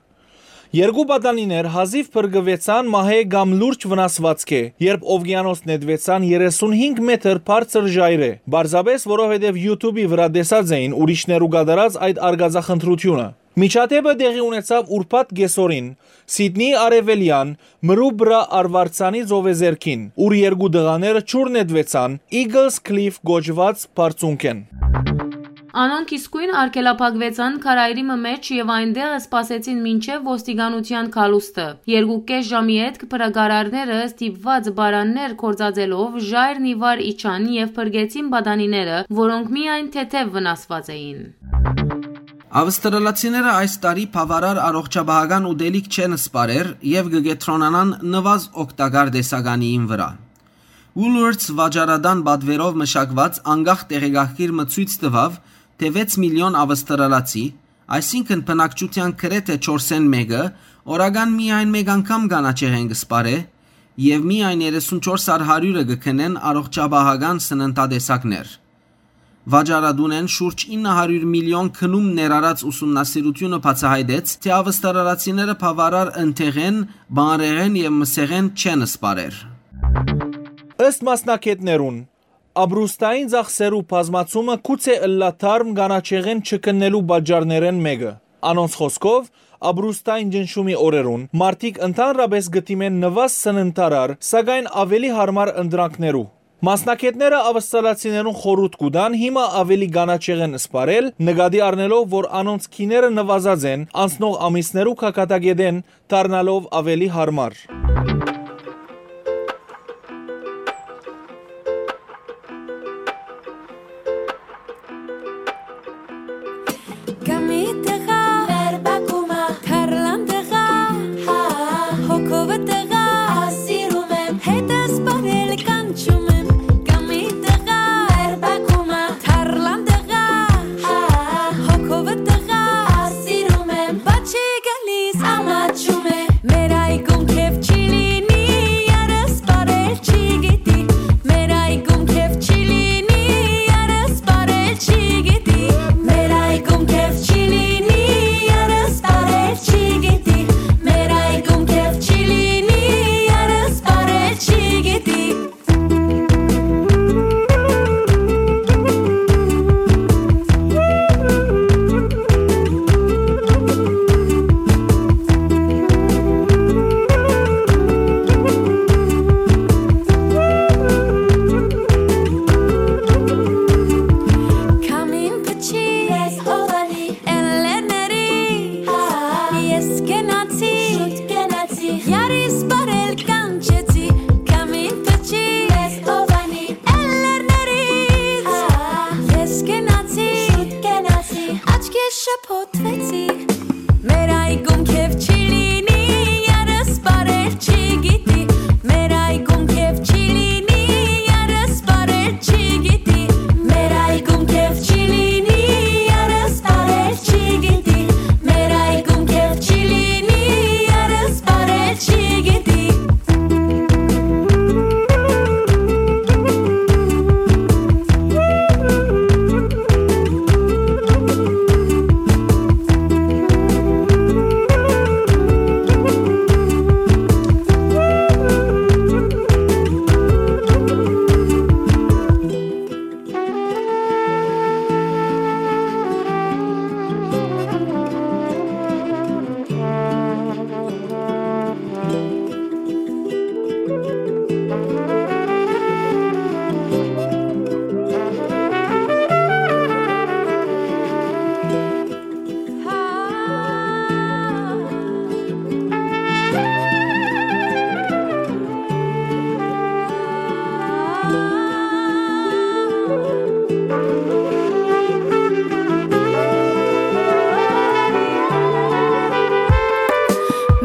Երկու պատանիներ հազիւ փրկուեցան մահէ կամ լուրջ վնասուածքէ, երբ ովկիանոս նետուեցան երեսունհինգ մեթր բարձր ժայռէ, պարզապէս որովհետեւ YouTube-ի վրայ տեսած էին ուրիշներու կատարած այդ արկածախնդրութիւնը։ Միջադէպը տեղի ունեցաւ ուրբաթ կէսօրին Սիդնիի արեւելեան Մրուբրա արուարձանի ծովեզերքին, ուր երկու տղաները ջուր նետուեցան Eagles Cliff կոչուած բարձունքէն։ Անոնք իսկոյն արգելափակուեցան քարայրի մը մէջ եւ այնտեղ սպասեցին մինչեւ ոստիկանութեան գալուստը։ Երկու կէս ժամի ետք փրկարարները ստիպուած պարաններ գործածելով ժայռն ի վար իջան եւ փրկեցին պատանիները, որոնք միայն թեթեւ վնասուած էին։ Ավստրալացիները այս տարի բաւարար առողջապահական ուտելիք չեն սպարեր եւ կը կեդրոնանան նուազ օգտակար տեսականիին վրայ։ Woolworths վաճառատան պատուերով մշակուած անկախ տեղեկագիր մը ցոյց տուաւ, թէ վեց միլիոն ավստրալացի, այսինքն բնակչութեան գրեթէ չորսէն մէկը, օրական միայն մեկ անգամ կանաչեղէն կը սպարէ եւ միայն երեսունչորս առ հարիւրը կը գնեն առողջապահական սննդատեսակներ։ Վաճառատունէն շուրջ ինը հարիւր միլիոն գնում ներառած ուսումնասիրութիւնը բացայայտեց, թէ ավստրալացիները բաւարար ընթեղէն, բանրեղէն եւ մսեղէն չեն սպարեր։ Ըստ մասնագէտներուն, ապրուստային ծախսերու բազմացումը գուցէ ըլլայ թարմ կանաչեղէն չգնելու պատճառներէն մէկը։ Անոնց խօսքով, ապրուստային ճնշումի օրերուն մարդիկ ընդհանրապէս կը դիմեն նուազ սննդարար, սակայն աւելի յարմար ընտրանքներու։ Մասնագէտները ավստրալացիներուն խորհուրդ կու տան հիմա աւելի կանաչեղէն սպարել, նկատի առնելով, որ անոնց գիները նուազած են անցնող ամիսներու գագաթակէտէն, դառնալով աւելի յարմար։ Կամի տղա, մեր բակումը, թարլան տղա, հա, հոգովը տղա, սիրում եմ, հետս պարել կանչում եմ, կամի տղա, մեր բակումը, թարլան տղա, հա, հոգովը տղա, սիրում եմ, բաչի գալիս, ամաչում է, մեր այգում քեֆ չի լինի, երս պարել չի գիտի, մեր այգում քեֆ չի լինի, երս պարել չի գիտի, մեր այգում քեֆ չի լինի, երս պարել չի գիտի, մեր այգում քեֆ չի լինի, երս պարել չի գիտի։ Քամին փչի, ես հովանի, էլերների, ես կենացի, շուտ կենացի, յարիս պարել կանչեցի, քամին փչի, ես հովանի, էլերների, ես կենացի, շուտ կենացի, աչքե շփոթվեցի, մեր այգում քեֆ չի լինի, երս պարել չի գիտի, մեր այգում քեֆ չի լինի, երս պարել չի գիտի, մեր այգում քեֆ չի լինի, երս պարել չի գիտի, մեր այգում քեֆ չի լինի, երս պարել չի գիտի։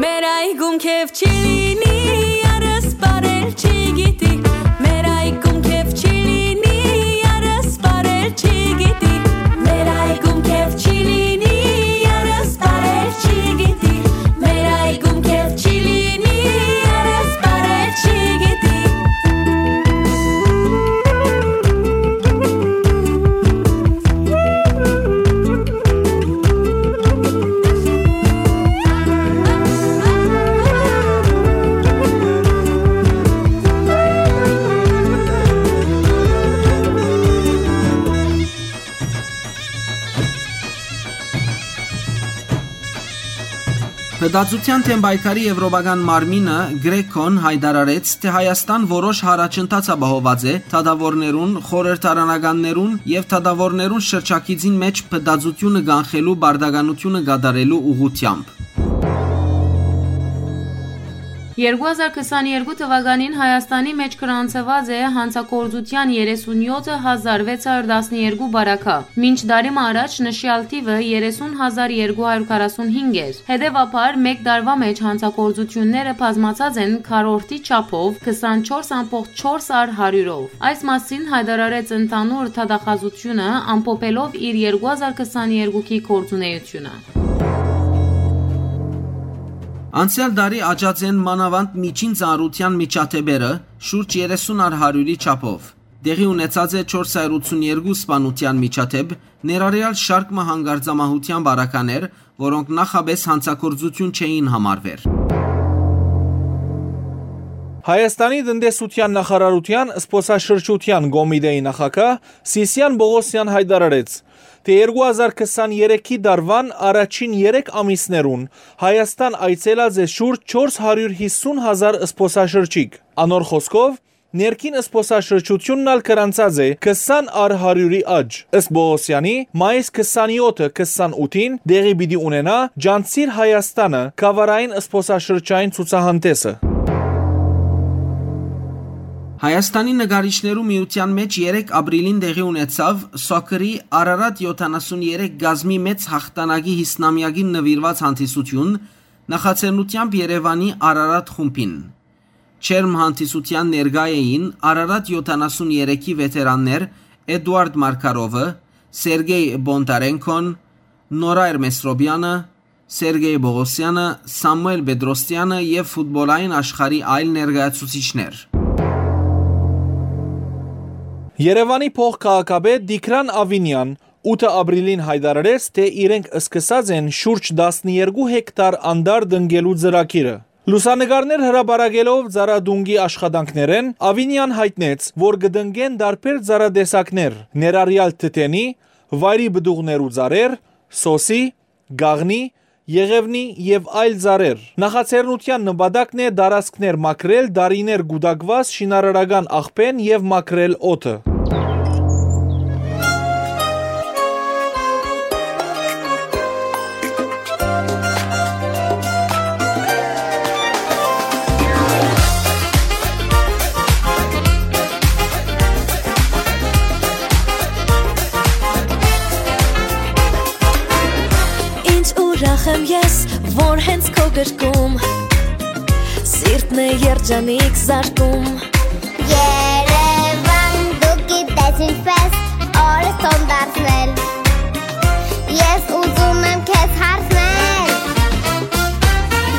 Մեր այգում քեֆ չի լինի, երս պարել չի գիտի, մեր այգում քեֆ չի լինի, երս պարել չի գիտի, մեր այգում քեֆ չի լինի, երս պարել չի գիտի, մեր այգում քեֆ չի լինի, երս պարել չի գիտի։ Փտածութեան դէմ պայքարի Եվրոպական մարմինը՝ Գրեքոն, յայտարարեց, թէ Հայաստան որոշ յառաջընթաց ապահոված է դատաւորներուն, խորհրդարանականներուն եւ դատաւորներուն շրջագիծին մէջ փտածութիւնը կանխելու պարտականութիւնը կատարելու ուղղութեամբ։ Երկու հազար քսաներկու թուականին Հայաստանի մէջ գրանցուած է յանցագործութեան երեսունյոթ հազար վեց հարիւր տասներկու պարագայ, մինչ տարի մը առաջ նշեալ թիւը երեսուն հազար երկու հարիւր քառասունհինգ էր։ Հետեւաբար, մէկ տարուայ մէջ յանցագործութիւնները բազմացած են քառորդի չափով, քսանչորս ամբողջ չորս առ հարիւրով։ Այս մասին յայտարարեց ընդհանուր դատախազութիւնը՝ ամփոփելով իր երկու հազար քսաներկուքի գործունեութիւնը։ Անցեալ տարի աճած են մանաւանդ միջին ծանրութեան միջադէպերը շուրջ երեսուն առ հարիւրի չափով։ Տեղի ունեցած է չորս հարիւր ութսուններկու սպանութեան միջադէպ, ներառեալ շարք մը հանկարծամահութեան պարագաներ, որոնք նախապէս յանցագործութիւն չէին համարուեր։ Հայաստանի տնտեսութեան նախարարութեան զբօսաշրջութեան կոմիտեի նախագահ Սիսիան Պողոսեան յայտարարեց, թէ երկու հազար քսաներեքի տարուան առաջին երեք ամիսներուն Հայաստան այցելած է շուրջ չորս հարիւր յիսուն հազար զբօսաշրջիկ։ Անոր խօսքով, ներքին զբօսաշրջութիւնն ալ գրանցած է քսան առ հարիւրի աճ։ Ըստ Պողոսեանի, մայիս քսանեօթը քսանութին տեղի պիտի ունենայ Ճանչցիր Հայաստանը գաւառային զբօսաշրջային ցուցահանդէսը։ Հայաստանի նկարիչներու միութեան մէջ երեք ապրիլին տեղի ունեցաւ Սոքրի Արարատ յոթանասուն երեք կազմի մեծ յաղթանակի յիսնամեակին նուիրուած հանդիսութիւն, նախաձեռնութեամբ Երեւանի Արարատ խումբին։ Ջերմ հանդիսութեան ներկայ էին Արարատ յոթանասուն երեքի վեթերաններ Էդուարդ Մարկարովը, Սերգեյ Բոնտարենքոն, Նորա Էրմեսրոպյանը, Սերգեյ Պողոսեանը, Սամուէլ Պետրոսյանը եւ ֆուտբոլային աշխարհի այլ ներկայացուցիչներ։ Երեւանի փոխքաղաքապետ Տիգրան Ավինեան ութը ապրիլին յայտարարեց, թէ իրենք սկսած են շուրջ տասներկու հեկտար անտառ տնկելու ծրագիրը։ Լուսանկարներ հրապարակելով ծառատունկի աշխատանքներէն, Ավինեան յայտնեց, որ կը տնկեն տարբեր ծառատեսակներ, ներառյալ թթենի, վայրի պտուղներու ծառեր, սոսի, կաղնի, եղեւնի եւ այլ ծառեր։ Նախաձեռնութեան նպատակն է տարածքներ մաքրել տարիներ կուտակուած շինարարական աղբէն եւ մաքրել օդը։ Ինչ ուրախ եմ ես, որ հենց քո գրկում սիրտն է երջանիկ զարկում։ Երևան, դու գիտես ինչպես օրս թոն դարձնել։ Ես ուզում եմ քեզ հարցնել,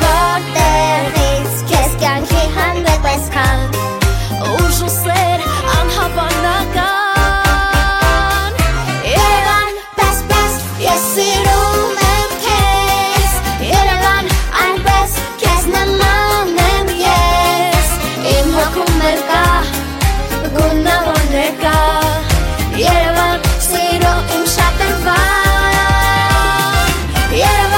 որտեղից քեզ կյանքի հանդեպ այսքան ուժ ու սեր անհավանական։ Երևան, պես, պես, ես սիրում եմ քեզ, Երևան, այնպես քեզ նման եմ ես, իմ հոգում էլ կա գունավոր ներկա, Երևան, սիրո իմ շատրվան, Երևան,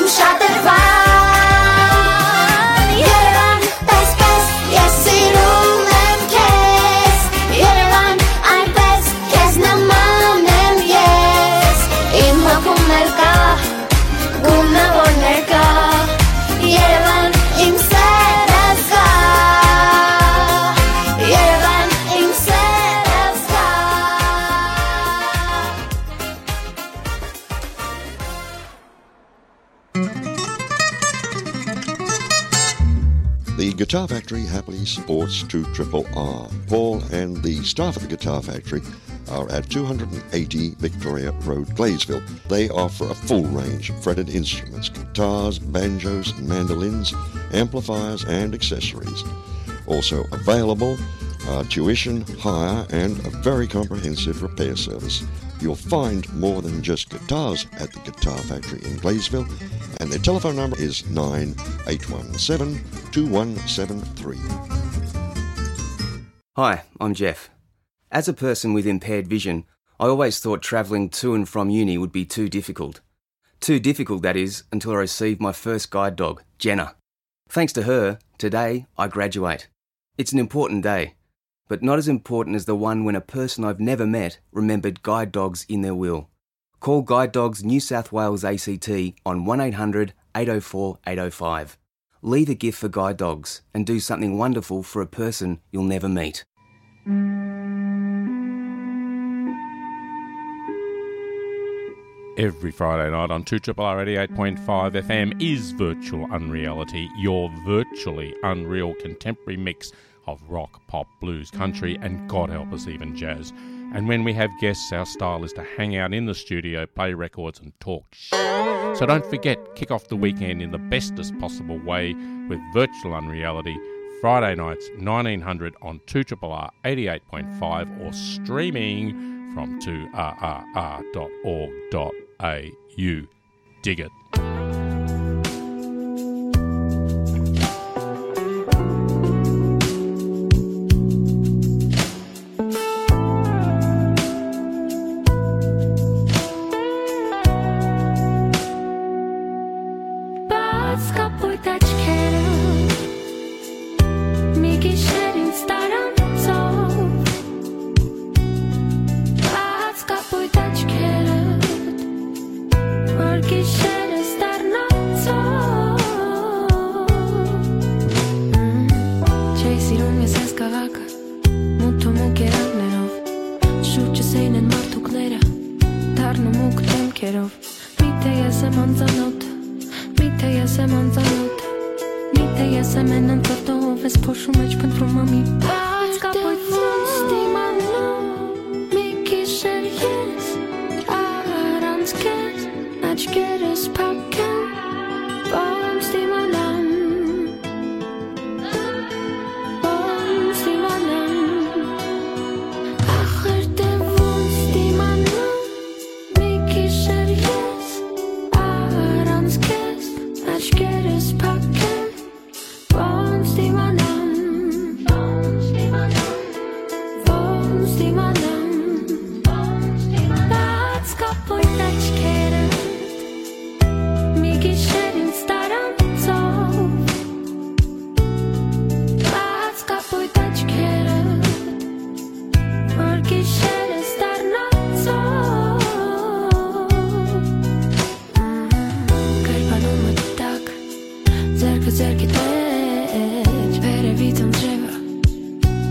Շատրվան, Երևան, պես, պես, ես սիրում եմ քեզ։ Երևան, այնպես, քեզ նման եմ ես։ Իմ հոգում ներկա, գունավորներ կա։ Երևան, իմ սերը զգա։ Երևան, իմ սերը զգա։ The Guitar Factory happily supports two triple R. Paul and the staff at the Guitar Factory are at two hundred and eighty Victoria Road, Gladesville. They offer a full range of fretted instruments, guitars, banjos, mandolins, amplifiers, and accessories. Also available are tuition, hire, and a very comprehensive repair service. You'll find more than just guitars at the Guitar Factory in Gladesville, and their telephone number is nine eight one seven two one seven three. Hi, I'm Jeff. As a person with impaired vision, I always thought travelling to and from uni would be too difficult. Too difficult, that is, until I received my first guide dog, Jenna. Thanks to her, today I graduate. It's an important day, but not as important as the one when a person I've never met remembered guide dogs in their will. Call Guide Dogs New South Wales A C T on one eight hundred eight oh four eight oh five. Leave a gift for Guide Dogs and do something wonderful for a person you'll never meet. Every Friday night on two triple R eighty-eight point five F M is Virtual Unreality, your virtually unreal contemporary mix of rock, pop, blues, country, and God help us, even jazz. And when we have guests, our style is to hang out in the studio, play records, and talk sh-. So don't forget, kick off the weekend in the bestest possible way with Virtual Unreality, Friday nights, nineteen hundred on two triple R eighty-eight point five, or streaming from two R R R dot org dot A U. Dig it. Բաց կապույտ աչքերը, մի գիշեր ինձ տարանցով, բաց կապույտ աչքերը, որ գիշերս դառնանցով։ Չէի սիրում ես այս քաղաքը, մութ ու մուգ երանգներով, շուրջս էին են մարդուկները, դառնու մուգ դեմքերով։ Միթե ես եմ անծանոթ, միթե ես եմ անծանոթ, միթե ես եմ են անծանոթով, ես փոշու մեջ փնտրում եմ մի բաց կապույտ ոնց դիմանամ, մի գիշեր ես առանց քեզ, աչքերս փակ են, ոնց դիմանամ, ոնց դիմանամ, ախր դե ոնց դիմանամ, մի գիշեր ես առանց քեզ, աչքերս փակ են, ոնց դիմանամ, ոնց դիմանամ, ոնց դիմանամ, ոնց դիմանամ, բաց կապույտ աչքերը, մի գիշեր ինձ տարանցով, բաց կապույտ աչքերը, որ գիշերս դառնանցով։ Կերպանում մտակ, ձեռքը ձեռքի մեջ, վերևից անձրևը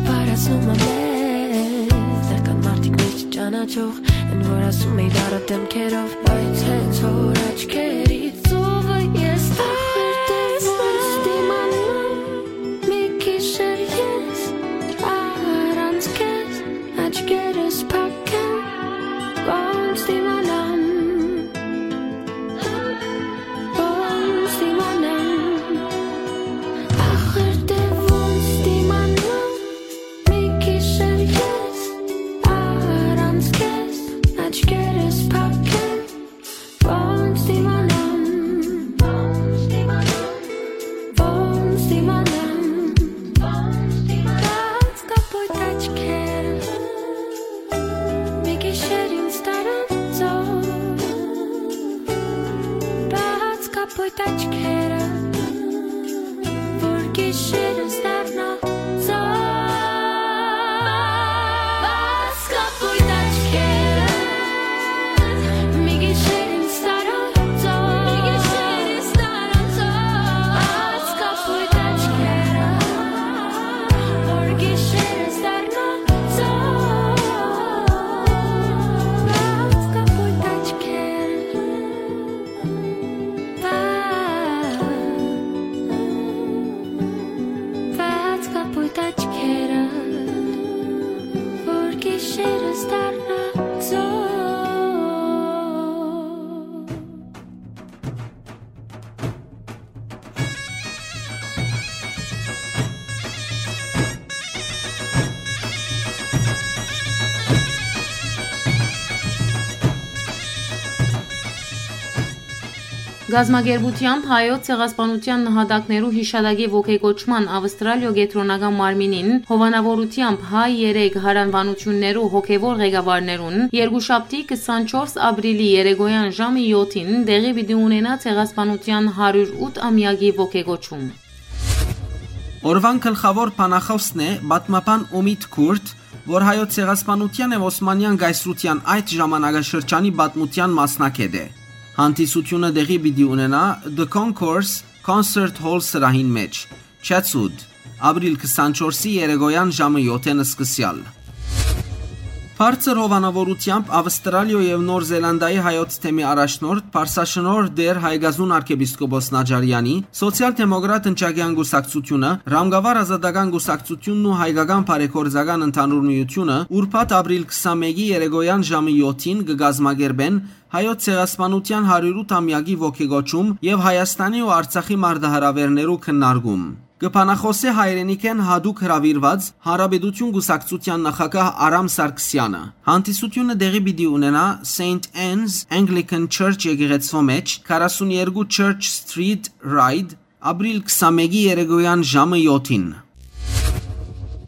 պարասնում է մեզ, տեղ կան մարդիկ մեզ չճանաչող, են որ ասում էի դառը դեմքերով, բայց հենց որ աչքերիդ ծովը ես տեսնում, դիմանամ, մի գիշեր ես առանց քեզ, աչքերս փակ են, ոնց դիմանամ, ոնց դիմանամ, ախր դե ոնց դիմանամ, մի գիշեր ես առանց քեզ, աչքերս փակ են, ոնց դիմանամ, Պոյտ աչքերը, որ գիշերս դառնա ծով։ Բաց կապույտ աչքերը, մի գիշեր ինձ տարան ծով։ Մի գիշեր ինձ տարան ծով։ Բաց կապույտ աչքերը, որ գիշերս դառնա ծով։ Բաց կապույտ աչքերը, Բաց կապույտ աչքերը, որ գիշերս դառնա ծով։ Կազմակերպութեամբ Հայոց ցեղասպանութեան նահատակներու յիշատակի ոգեկոչման Ավստրալիոյ կեդրոնական մարմինին հովանաւորութեամբ հայ երեք յարանուանութիւններու հոգեւոր ղեկավարներուն երկուշաբթի քսանչորս ապրիլի երեկոյան ժամը յոթին տեղի պիտի ունենայ ցեղասպանութեան հարիւր ութ ամեակի ոգեկոչում։ Օրուան գլխաւոր բանախօսն է պատմաբան Ումիտ Քուրտ, որ Հայոց ցեղասպանութեան եւ Օսմանեան կայսրութեան այդ ժամանակաշրջանի պատմութեան մասնագէտ է։ Հանդիսութիւնը տեղի պիտի ունենայ The Concourse Concert Hall սրահին մէջ, Chatswood, ապրիլ քսանչորսի երեկոյան ժամը յոթ-ին սկսեալ։ Բարձր հովանաւորութեամբ Ավստրալիոյ եւ Նոր Զելանդիայի հայոց թեմի առաջնորդ, Պարսաշնորհ Տէր Հայկազուն արքեպիսկոպոս Նաջարեանի, Սոցիալ-դեմոկրատ ընչակեան կուսակցութիւնը, Ռամկավար ազատական կուսակցութիւնն ու Հայկական բարեգործական ընդհանուր միութիւնը ուրբաթ ապրիլ քսանմէկի երեկոյան ժամը յոթ-ին կը կազմակերպեն Հայոց ցեղասպանութեան հարիւր ութ ամեակի ոգեկոչում եւ Հայաստանի ու Արցախի մարտահրաւէրներու քննարկում։ Կը բանախօսէ հայրենիքէն յատուկ հրաւիրուած Հանրապետութիւն կուսակցութեան նախագահ Արամ Սարգսեանը։ Հանդիսութիւնը տեղի պիտի ունենայ Սեյնթ Անն'ս Anglican Church եկեղեցւոյ մէջ, քառասուն երկու Church Street, Ryde, ապրիլ քսանմէկի երեկոյան ժամը յոթ-ին։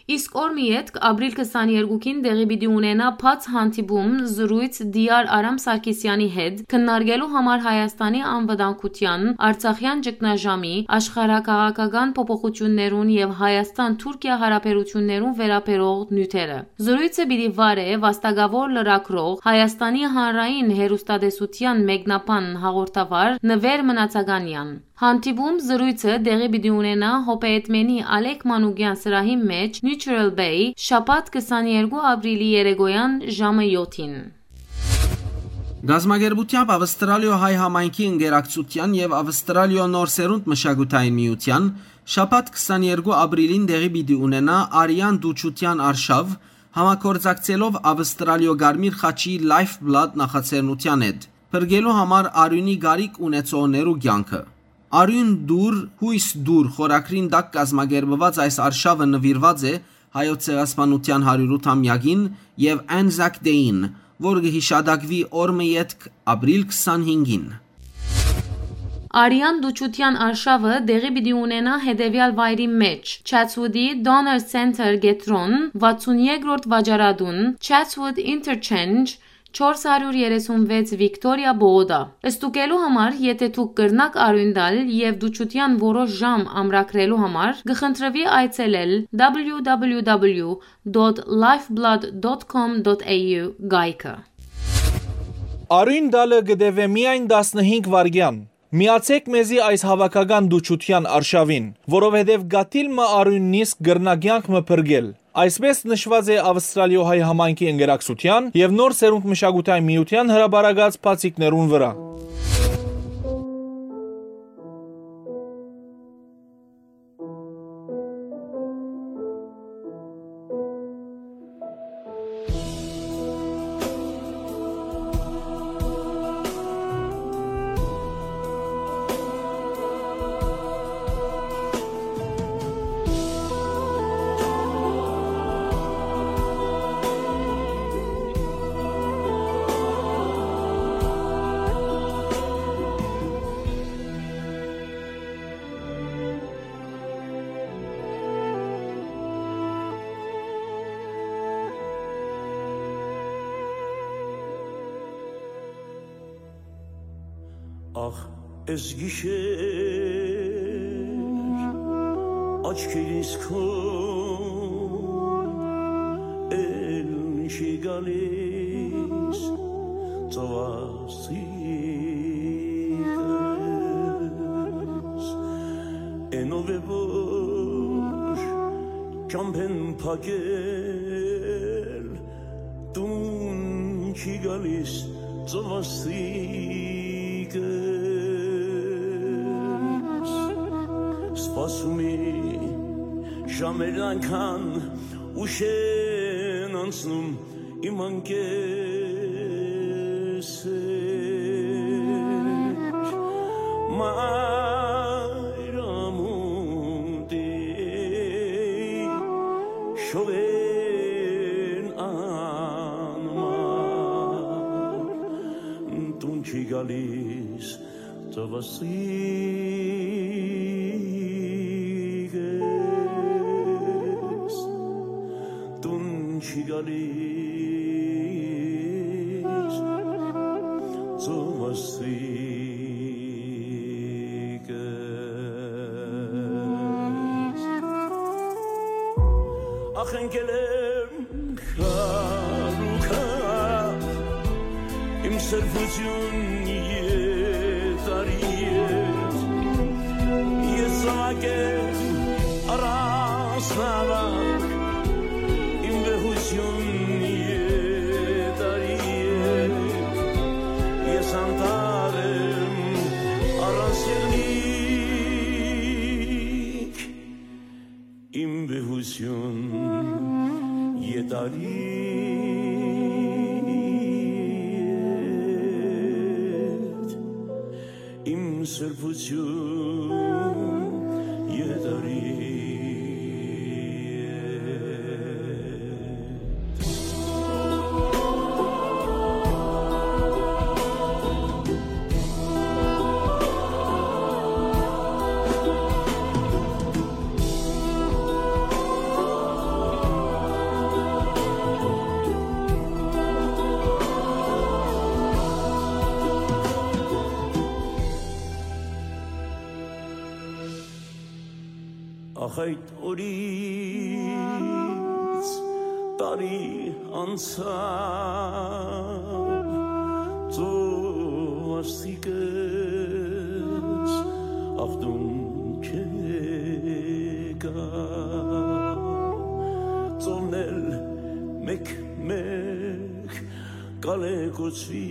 Իսկ օր մը ետք, ապրիլ քսաներկուին, տեղի պիտի ունենայ բաց հանդիպում, զրոյց Տիար Արամ Սարգսեանի հետ, քննարկելու համար Հայաստանի անվտանգութեան, Արցախեան ճգնաժամի, աշխարհաքաղաքական փոփոխութիւններուն եւ Հայաստան-Թուրքիա յարաբերութիւններուն վերաբերող նիւթերը։ Զրոյցը պիտի վարէ վաստակաւոր լրագրող, Հայաստանի հանրային հեռուստատեսութեան մեկնաբան հաղորդավար Նուէր Մնացականեան։ Հանդիպում զրոյցը տեղի պիտի ունենայ Հոպեյեդմենի Ալեք Մանուկեան սրահի մէջ, Neutral Bay, շաբաթ քսաներկու ապրիլի երեկոյան ժամը յոթ-ին։ Գազམ་ագերբութեամբ Ավստրալիոյ հայ համայնքի ընկերակցութեան եւ Ավստրալիոյ նոր սերունդ մշակութային միութեան շաբաթ քսաներկու ապրիլին տեղի պիտի ունենայ Արեան դուչութեան արշաւ, համագործակցելով Ավստրալիոյ Կարմիր խաչի Lifeblood նախաձեռնութեան հետ, փրկելու համար արիւնի կարիք ունեցողներու կեանքը։ Արիւն դուր, յոյս դուր խորագրին տակ կազմակերպուած այս արշաւը նուիրուած է Հայոց ցեղասպանութեան հարիւր ութ ամեակին եւ Anzac Day-ին, որ կը յիշատակուի օր մը ետք, ապրիլ քսանհինգին։ Արեան դուչութեան արշաւը տեղի պիտի ունենայ հետեւեալ վայրի մէջ՝ Chatswood-ի Donner Center կեդրոն, վաթսուն երկրորդ վաճառատուն, Chatswood Interchange, չորս հարիւր երեսուն վեց Victoria Boulder։ Ստուգելու համար, եթէ դուք կրնաք արիւն տալ եւ դուչութեան որոշ ժամ ամրագրելու համար, կը խնդրուի այցելել www.lifeblood.com.au կայքը։ Արիւն տալը կը տեւէ միայն տասնհինգ վայրկեան։ Միացէք մեզի այս հաւաքական դուչութեան արշաւին, որովհետեւ կաթիլ մը արիւն նիսկ կրնայ կեանք մը փրկել։ Այսպէս նշուած է Ավստրալիոյ հայ համայնքի ընկերակցութեան եւ նոր սերունդ մշակութային միութեան հրապարակած բացիկներուն վրայ։ Ախ, Ես գիշեր աչքերիս քո էլ չի գալիս ծովասիկս, էնով է որ ճամբեն փակել տուն չի գալիս ծովասիկս։ Սպասում է ժամերն այնքան ուշ են անցնում իմ անկեսեր, մայր ամուտի շողեն անմար, տուն չի գալիս ծովասիկս, տուն չի գալիս ծովասիկս։ Ախ, ընկել եմ քարուքա, իմ սրբություն ետարի հետ, ես զաւակ եմ առանց նավակ, իմ վեհություն ետարի հետ, ես անտառ եմ առանց եղնիկ, իմ վեհություն ետարի հետ, իմ սրբություն ետարի հետ։ Ախ, այդ օրից տարի անցաւ, ծովասիկս ախտուն չեկա, ծովն էլ մեկ-մեկ կալեկուցի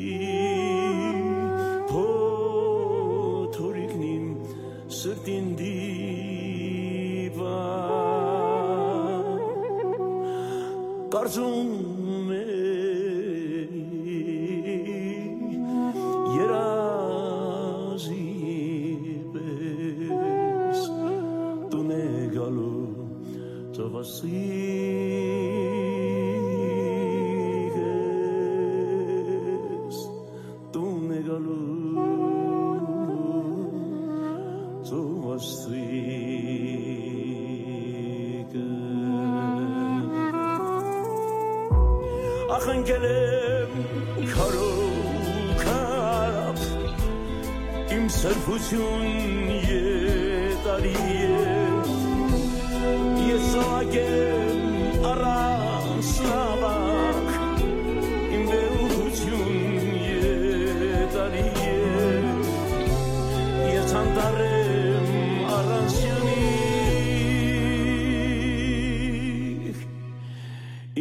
փոթորիկն իմ սրտին դիպա, կարծում է երազի պես տուն է գալու ծովասիկս, տուն է գալու ծովասիկս։ Ախ, ընկել եմ քարով քարապ, իմ սրբություն ետարի հետ, ես զաւակ եմ առանց նավակ, իմ վեհություն ետարի հետ, ես անտառ եմ առանց եղնիկ,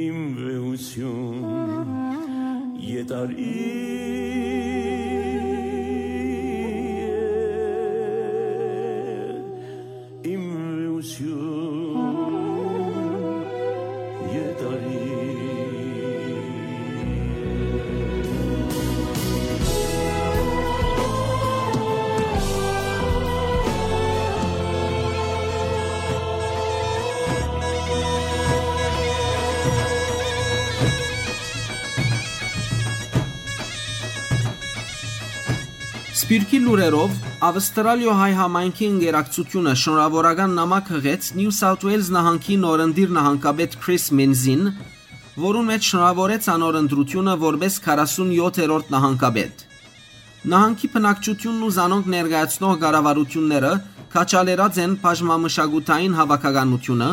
իմ վեհություն ետարի հետ, իմ վեհություն ետարի հետ։ Սփիւռքի լուրերով, Ավստրալիոյ հայ համայնքի ընկերակցութիւնը շնորհաւորական նամակ յղեց Նիու Սաութ Ուէյլզ նահանգի նորընտիր նահանգապետ Քրիս Մինզին, որուն մէջ շնորհաւորեց անոր ընտրութիւնը որպէս քառասունյոթերորդ նահանգապետ։ Նահանգի բնակչութիւնն ու զանոնք ներկայացնող կառավարութիւնները քաջալերած են բաժնամշակութային հաւաքականութիւնը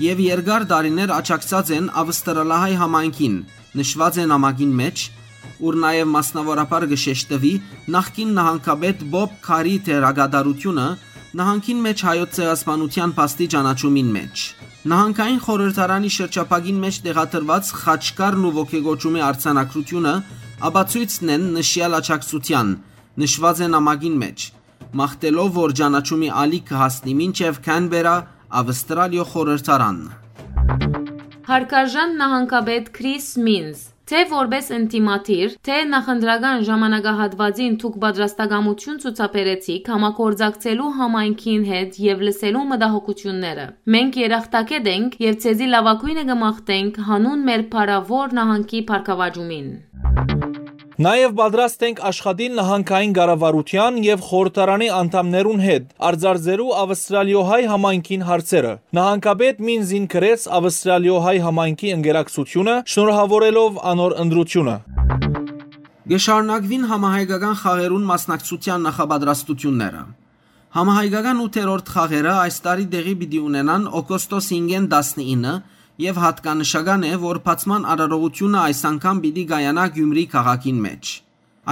եւ երկար տարիներ աջակցած են Ավստրալահայ համայնքին, նշուած է նամակին մէջ, ուր նաեւ մասնաւորաբար կը շեշտուի նախկին նահանգապետ Պոպ Քարի դերակատարութիւնը նահանգին մէջ հայոց ցեղասպանութեան փաստի ճանաչումին մէջ։ Նահանգային խորհրդարանի շրջափակին մէջ տեղադրուած խաչքարն ու ոգեկոչումի արձանագրութիւնը ապացոյցն են նշեալ աջակցութեան, նշուած է նամակին մէջ, մաղթելով որ ճանաչումի ալիք կը հասնի մինչեւ Քանբերա, Ավստրալիոյ խորհրդարան։ Հարգարժան նահանգապետ Քրիս Մինզ, թէ որպէս ընդդիմադիր, թէ նախընտրական ժամանակահատուածին դուք պատրաստակամութիւն ցուցաբերեցիք համագործակցելու համայնքին հետ եւ լսելու մտահոգութիւնները։ Մենք երախտագէտ ենք եւ ձեզի լաւագոյնը կը մաղթենք յանուն մեր փառաւոր նահանգի բարգաւաճումին։ Նաեւ պատրաստ ենք աշխատիլ նահանգային կառավարութեան եւ խորհրդարանի անդամներուն հետ, արձարծելու Ավստրալիոյ հայ համայնքին հարցերը։ Նահանգապետ Մինզին գրեց Ավստրալիոյ հայ համայնքի ընկերակցութիւնը, շնորհաւորելով անոր ընտրութիւնը։ Կը շարունակուին համահայկական խաղերուն մասնակցութեան նախապատրաստութիւնները։ Համահայկական ութերորդ խաղերը այս տարի տեղի պիտի ունենան օգոստոս հինգէն տասնինը եւ յատկանշական է, որ բացման արարողութիւնը այս անգամ պիտի կայանայ Գիւմրի քաղաքին մէջ։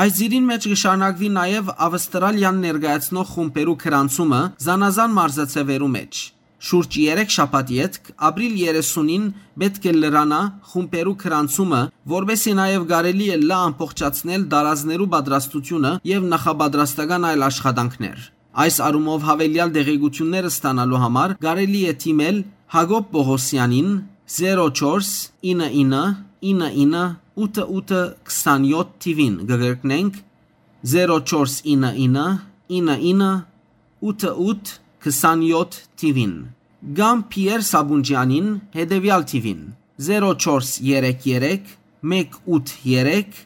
Այս ծիրին մէջ կը շարունակուի նաեւ Ավստրալիան ներկայացնող խումբերու գրանցումը զանազան մարզաձեւերու մէջ։ Շուրջ երեք շաբաթ ետք, ապրիլ երեսունին, պէտք է լրանայ խումբերու գրանցումը, որպէսզի նաեւ կարելի ըլլայ ամբողջացնել տարազներու պատրաստութիւնը եւ նախապատրաստական այլ աշխատանքներ։ Այս առումով յաւելեալ տեղեկութիւններ ստանալու համար կարելի է դիմել Յակոբ Պողոսեանին, զերո չորս ինը ինը ինը ինը ութը ութը քսանյոթ թիւին, կը կրկնենք, զերո չորս ինը ինը ինը ինը ութը ութ քսանյոթ թիւին, կամ Փիեր Սաբունջեանին, հետեւեալ թիւին, զերո չորս երեք երեք մեկ ութ երեք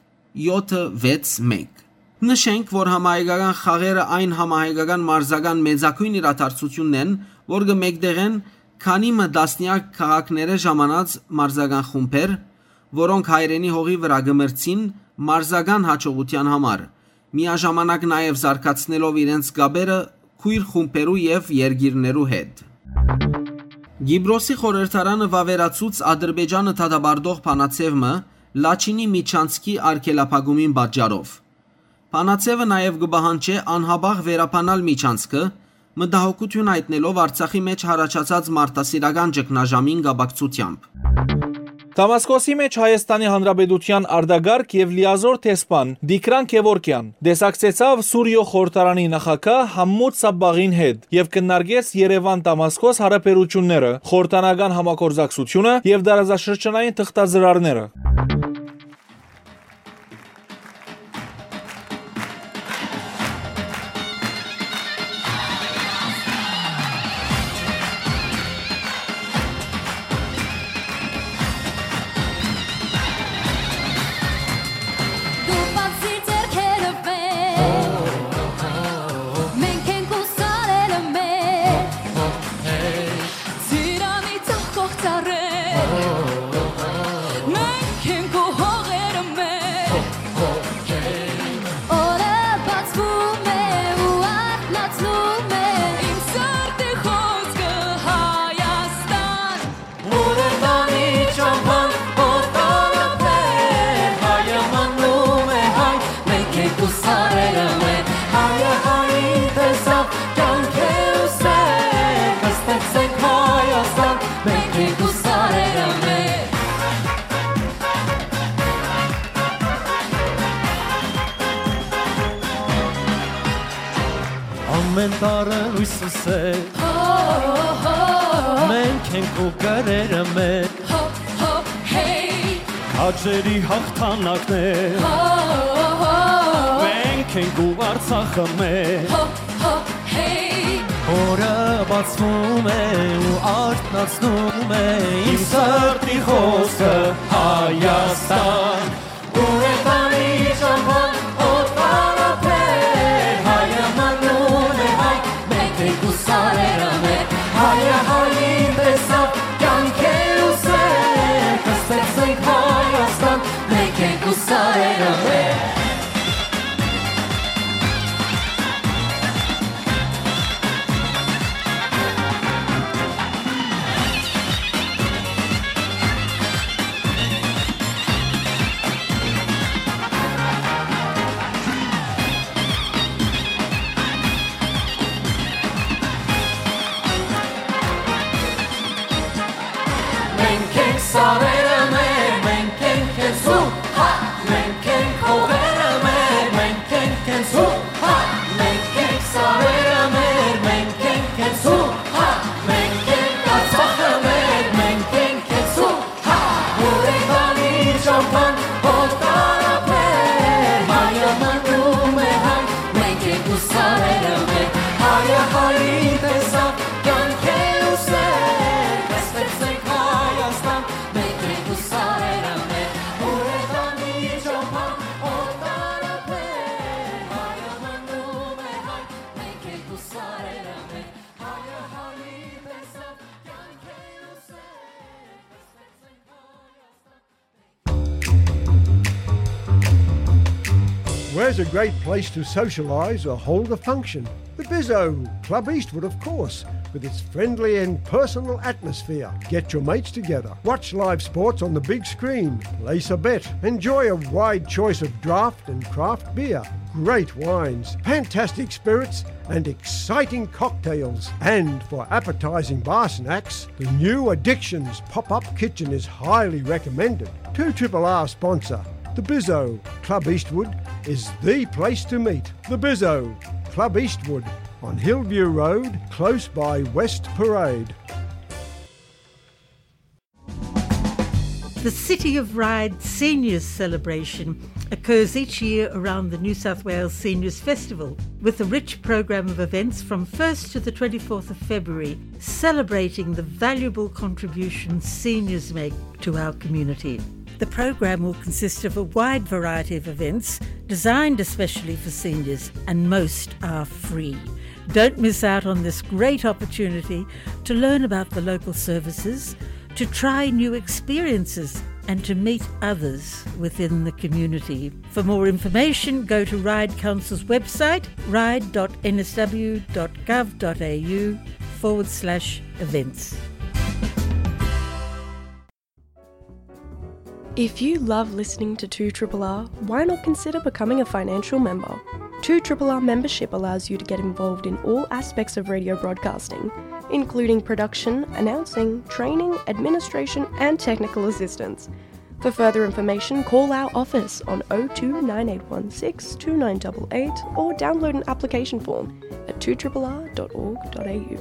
յոթը վեց մեկ։ Նշենք, որ համահայկական խաղերը այն համահայկական մարզական մեծագոյն իրադարձութիւնն են, որ կը մեկտեղեն քանի մը տասնեակ քաղաքներէ ժամանած մարզական խումբեր, որոնք հայրենի հողի վրայ կը մրցին մարզական յաջողութեան համար, միաժամանակ նաեւ զարգացնելով իրենց կապերը քոյր խումբերու եւ երկիրներու հետ։ Կիպրոսի խորհրդարանը վաւերացուց Ադրբեջանը դատապարտող բանաձեւ մը Լաչինի միջանցքի արգելափակումին պատճառով։ Բանաձեւը նաեւ կը պահանջէ անհապաղ վերաբանալ միջանցքը, մտահոգութիւն յայտնելով Արցախի մէջ յառաջացած մարդասիրական ճգնաժամին կապակցությամբ։ Դամասկոսի մէջ Հայաստանի Հանրապետութեան արտակարգ եւ լիազոր դեսպան Տիգրան Գեւորգեան տեսակցեցաւ Սուրիոյ խորհրդարանի նախագահ Համմուտ Սաբբաղին հետ եւ քննարկեց Երեւան-Դամասկոս յարաբերութիւնները, խորհրդանական համագործակցութիւնը եւ տարածաշրջանային թղթածրարները։ Դու բացի ձեռքերը վեր, մենք ենք ու սարերը մեր, ծիրանի ծաղկող ծառեր, մենք ենք ու հողերը մեր։ Օրը բացվում է ու արթնացնում է իմ սրտի խոսքը, Հայաստան։ Ուրեմն ի ճամփան օտարապետ, հայը մնում է հայ, մենք ենք ու սարերը մեր, հայը հային տեսավ, կյանք է ու սեր, կստեղծենք Հայաստան, մենք ենք ու սարերը մեր։ Ամեն տարը լույս է, մենք ենք ու կրերը մեր, քաջերի հաղթանակներ, մենք ենք ու Արցախը մեր, օրը բացվում է ու արթնացնում է իմ սրտի խոսքը, Հայաստան։ Ուրեմն ի ճամփան օտարապետ, հայը մնում է հայ, մենք ենք ու սարերը մեր, հայը հային տեսավ, կյանք է ու սեր, կստեղծենք Հայաստան, մենք ենք ու սարերը մեր։ There's a great place to socialise or hold a function. The Bizzo, Club Eastwood, of course, with its friendly and personal atmosphere. Get your mates together, watch live sports on the big screen, place a bet, enjoy a wide choice of draft and craft beer, great wines, fantastic spirits, and exciting cocktails. And for appetising bar snacks, the new Addictions pop-up kitchen is highly recommended. Two Triple R sponsor, the Bizzo, Club Eastwood, is the place to meet. The Bizzo, Club Eastwood, on Hillview Road, close by West Parade. The City of Ryde Seniors Celebration occurs each year around the New South Wales Seniors Festival, with a rich programme of events from first to the twenty-fourth of February, celebrating the valuable contributions seniors make to our community. The programme will consist of a wide variety of events designed especially for seniors, and most are free. Don't miss out on this great opportunity to learn about the local services, to try new experiences, and to meet others within the community. For more information, go to Ryde Council's website, ryde dot n s w dot gov dot a u forward slash events. If you love listening to two triple R, why not consider becoming a financial member? two triple R membership allows you to get involved in all aspects of radio broadcasting, including production, announcing, training, administration, and technical assistance. For further information, call our office on oh two nine eight one six two nine eight eight or download an application form at two triple R dot org dot a u.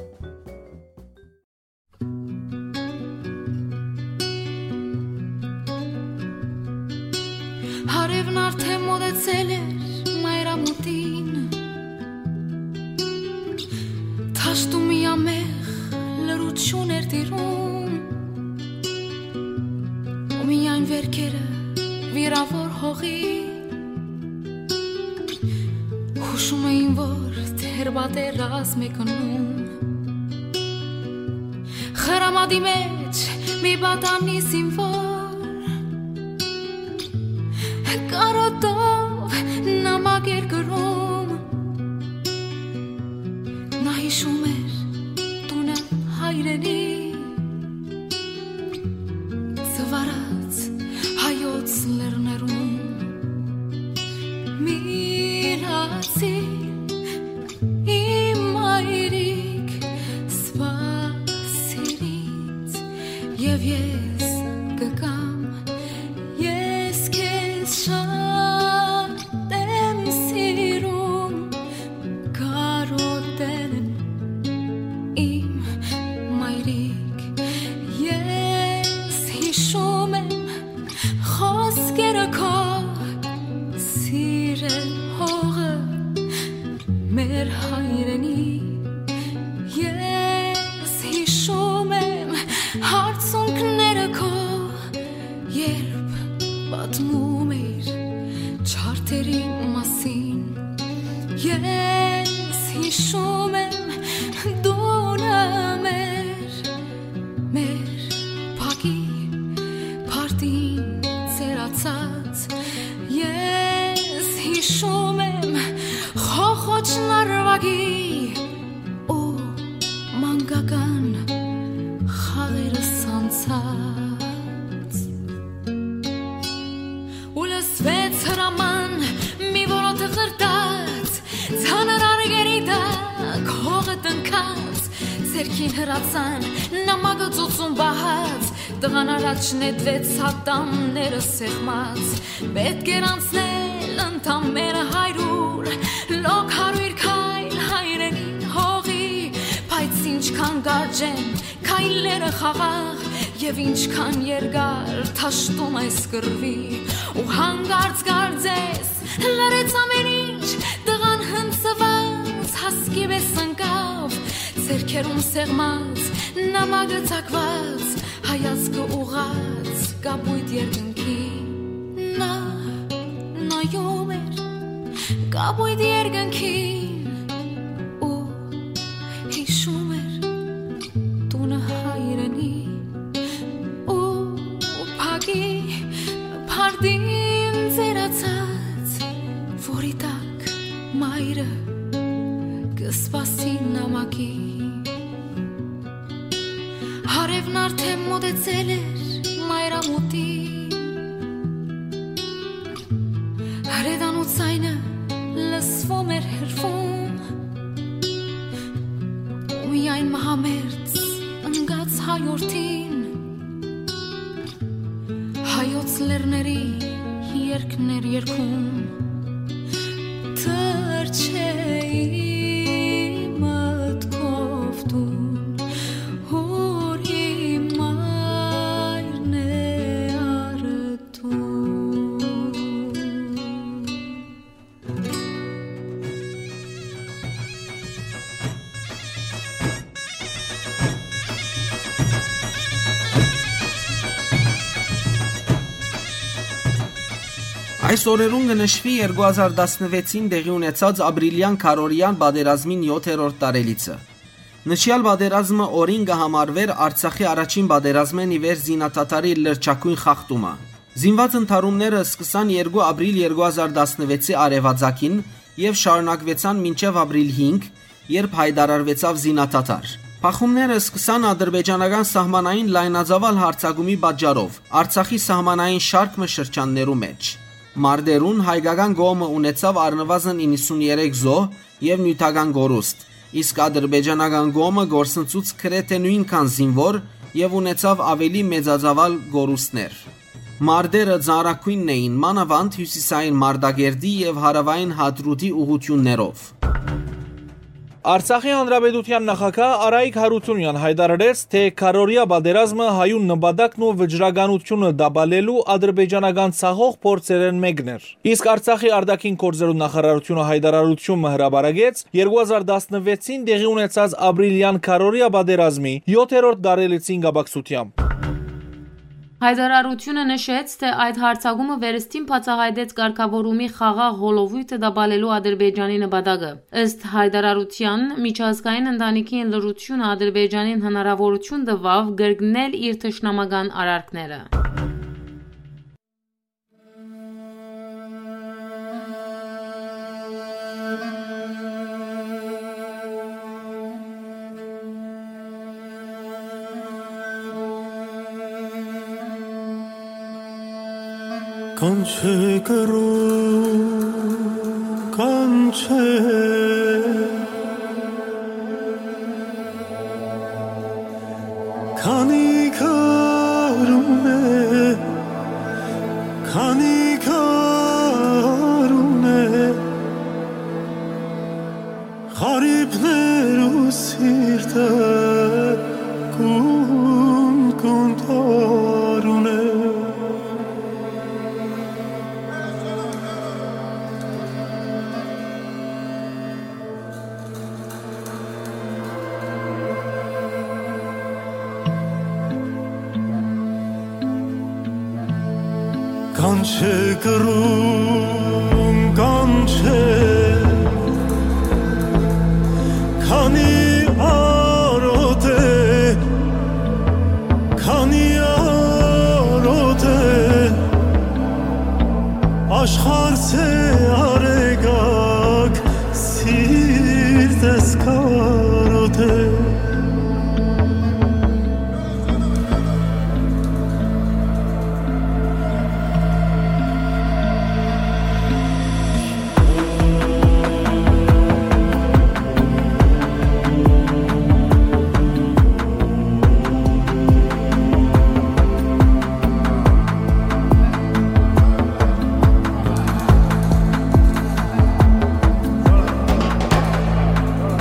Հարևն արդեն մոտեցել էր մայրամուտին, դաշտում միամեղ լռություն էր տիրում, ու միայն վերքերը վիրավոր հողի հուշում էին, որ դեռ պատերազմ է գնում։ Խրամատի մեջ մի պատանի զինվոր կարոտով նամակ էր գրում։ Նա հիշում էր տունը հայրենի, զվարած հայոց լեռներուն։ Մինացի իմ մայրիկ, սպասիր ինձ, եւ ես կգամ, ես քեզ շատ եմ սիրում, կարոտել եմ իմ մայրիկ, ես հիշում եմ խոսքերը քո, սիրել հողը մեր հայրենի, ես հիշում եմ հարցունքները քո, երբ պատմում էիր չարդերի մասին, ես հիշում եմ դունը մեր, մեր փակի փարտին ծերացած, ես հիշում եմ խոխոճ նարվագի ու մանկական խաղերս անցած։ Ու լսվեց հրաման մի որոթ ղրտած, ծանր արգերի տակ հողը տնքած, ձեռքին հրացան նամակը ծոցում պահած, տղան առաջ նետվեց ատամները սեղմած, պետք էր անցնել ընդամենը հարյուր, լոկ հարյուր քայլ հայրենի հողի, բայց ինչքան կարճ են քայլերը խաղաղ, եւ ինչքան երկար դաշտում այս կռվի, ու հանկարծ կարծես լռեց ամեն ինչ, տղան հնձված հասկի պես ընկավ, ձեռքերում սեղմած նամակը ծակված, հայացքը ուղղած կապույտ երկնքին։ Նա նայում էր կապույտ երկնքին ու հիշում էր տունը հայրենի ու փակի փարդին ծերացած, որի Ակի։ Արեւն արդէն մօտեցել էր մայրամուտին, հրետանու ձայնը լսվում էր հեռվում, ու միայն մահամերձ ընկած հայորդին հայոց լեռների երգն էր երգում։ Թռչէի մտքով տուն, ուր իմ մայրն է առտուն։ Այս օրերուն կը նշուի երկու հազար տասնվեցին տեղի ունեցած ապրիլեան քարորիան պատերազմին յոթերորդ տարելիցը։ Նշեալ պատերազմը օրին կը համարուէր Արցախի առաջին պատերազմէն ի վեր զինադադարի լրջագոյն խախտումը։ Զինուած ընդհարումները սկսան երկու ապրիլ երկու հազար տասնվեցի արեւածագին եւ շարունակուեցան մինչեւ ապրիլ հինգ, երբ յայտարարուեցաւ զինադադար։ Բախումները սկսան ադրբեջանական սահմանային լայնածաւալ յարձակումի պատճառով Արցախի սահմանային շարք մը շրջաններու մէջ։ Մարտերուն հայկական կողմը ունեցաւ առնուազն իննսուններեք զոհ եւ նիւթական կորուստ, իսկ ադրբեջանական կողմը կորսնցուց գրեթէ նոյնքան զինուոր եւ ունեցաւ աւելի մեծածաւալ կորուստներ։ Մարտերը ծանրագոյնն էին, մանաւանդ հիւսիսային Մարտակերտի եւ հարաւային Հադրութի ուղղութիւններով։ Արցախի Հանրապետութեան նախագահ Արայիկ Յարութիւնեան յայտարարեց, թէ քարորիա պատերազմը հայուն նպատակն ու վճռականութիւնը տապալելու ադրբեջանական ցախող փորձերէն մէկն էր։ Իսկ Արցախի արտաքին գործերու նախարարութիւնը յայտարարութիւն մը հրապարակեց երկու հազար տասնվեցին տեղի ունեցած ապրիլեան քարորիա պատերազմի յոթերորդ տարելիցին կապակցությամբ։ Հայտարարութիւնը նշեց, թէ այդ յարձակումը վերստին բացայայտեց կարգաւորումի խաղաղ հոլովոյթը տապալելու Ադրբեջանի նպատակը։ Ըստ հայտարարութեան, միջազգային ընտանիքին լռութիւնը Ադրբեջանին հնարաւորութիւն տուաւ կրկնել իր թշնամական արարքները։ Կանչէ կռուն, կանչէ, քանի քարուն է, քանի քարուն է, խարիփներու սիրտը կուն, կուն տառուն է։ Կանչէ կռուն, կանչէ, քանի արօտ է, քանի արօտ է, աշխարհս է արեգակ, սիրտս կարօտ է։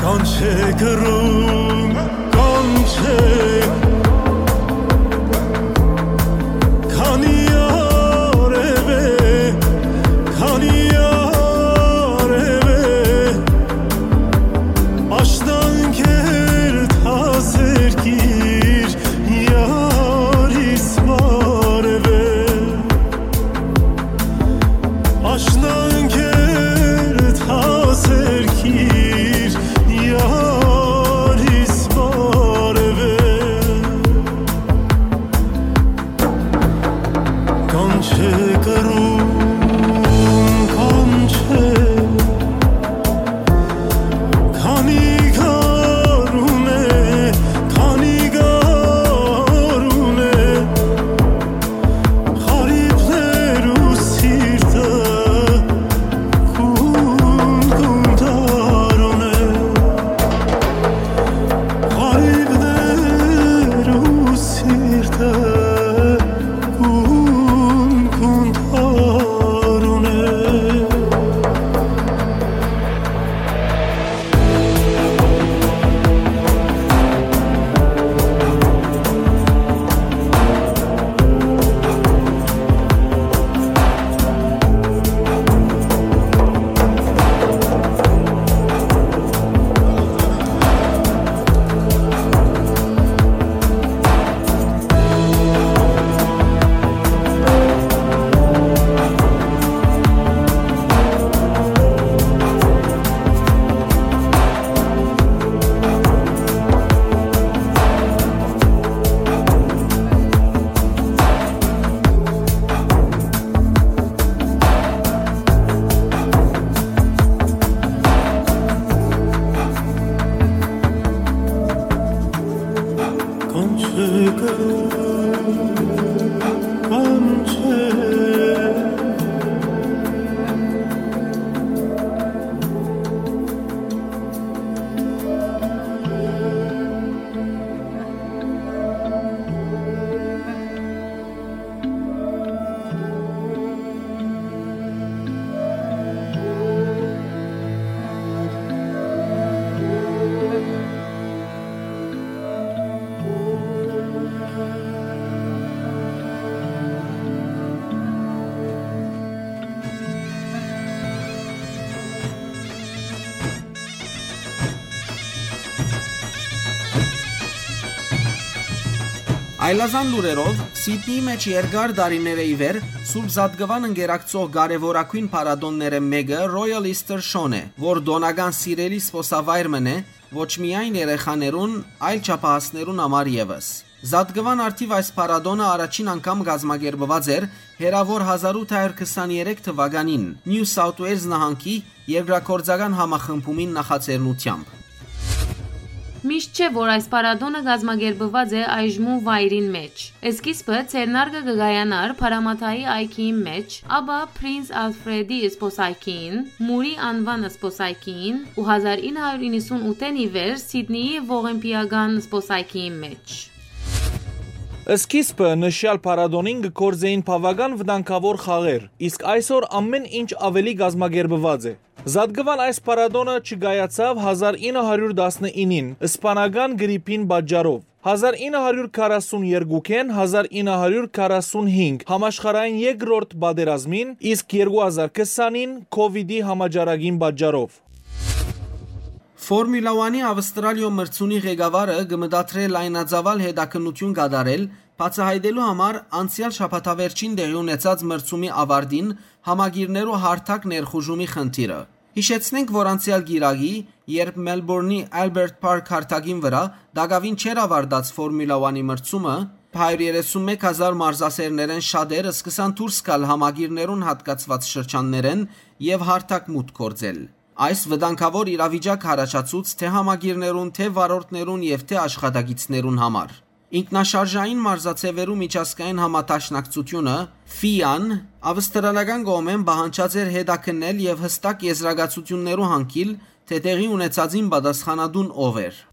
Կանչէ կռուն, կանչէ, քանի արեւ է, քանի արեւ է, աշնանքեր թազերկիր, յարիս բարեւ է։ Աշնանքեր թազերկիր, յարիս բարեւ է։ Այլազան լուրերով, Սիդնիի մէջ երկար տարիներէ ի վեր Սուրբ Զատկուան ընկերակցող կարեւորագոյն փառատոններէն մէկը Royal Easter Show-ն է, որ տօնական սիրելի զբօսավայր մըն է ոչ միայն երեխաներուն, այլ չափահասներուն համար եւս։ Զատկուան առթիւ այս փառատոնը առաջին անգամ կազմակերպուած էր հեռաւոր հազար ութ հարիւր քսանեթերեք թուականին Նիու Սաութ Ուէյլզ նահանգի երկրագործական համախմբումին նախաձեռնութեամբ։ Միշտ չէ, որ այս փառատոնը կազմակերպուած է այժմու վայրին մէջ։ Սկիզբը ձեռնարկը կը կայանար Փարամաթայի այգիին մէջ, ապա Prince Alfred-ի զբօսայգիին, Մուրի անուան զբօսայգիին ու հազար ինը հարիւր իննսուն ութ-ին ի վեր Սիդնիի ողեմպիական զբօսայգիին մէջ։ Սկիզբը նշեալ փառատոնին կը գործէին բաւական վտանգաւոր խաղեր, իսկ այսօր ամէն ինչ աւելի կազմակերպուած է։ Զատկուան այս փառատոնը չկայացաւ հազար ինը հարիւր տասնինին, սպանական գրիպին պատճառով։ Հազար ինը հարիւր քառասուն երկուքէն հազար ինը հարիւր քառասուն հինգ համաշխարհային երկրորդ պատերազմին, իսկ երկու հազար քսանին COVID-ի համաճարակին պատճառով։ Ֆորմուլա One-ի Ավստրալիոյ մրցունի ղեկավարը կը մտադրէ լայնածաւալ հետաքննութիւն կատարել, բացայայտելու համար անցեալ շաբաթավերջին տեղի ունեցած մրցումի աւարտին համակիրներու հարթակ ներխուժումի խնդիրը։ Յիշեցնենք, որ անցեալ կիրակի, երբ Մելբուրնի Albert Park հարթակին վրայ տակաւին չէր աւարտած Ֆորմուլա One-ի մրցումը, հարիւր երեսուն մէկ հազար մարզասէրներէն շատեր սկսան դուրս գալ համակիրներուն յատկացուած շրջաններէն եւ հարթակ մուտք գործել։ Այս վտանգաւոր իրավիճակ առաջացուց թէ համակիրներուն, թէ վարորդներուն եւ թէ աշխատակիցներուն համար։ Ինքնաշարժային մարզաձեւերու միջազգային համադաշնակցութիւնը, ֆի-ան, ավստրալական կողմէն պահանջած էր հետաքննել եւ յստակ եզրակացութիւններու յանգիլ, թէ տեղի ունեցածին պատասխանատուն ով էր։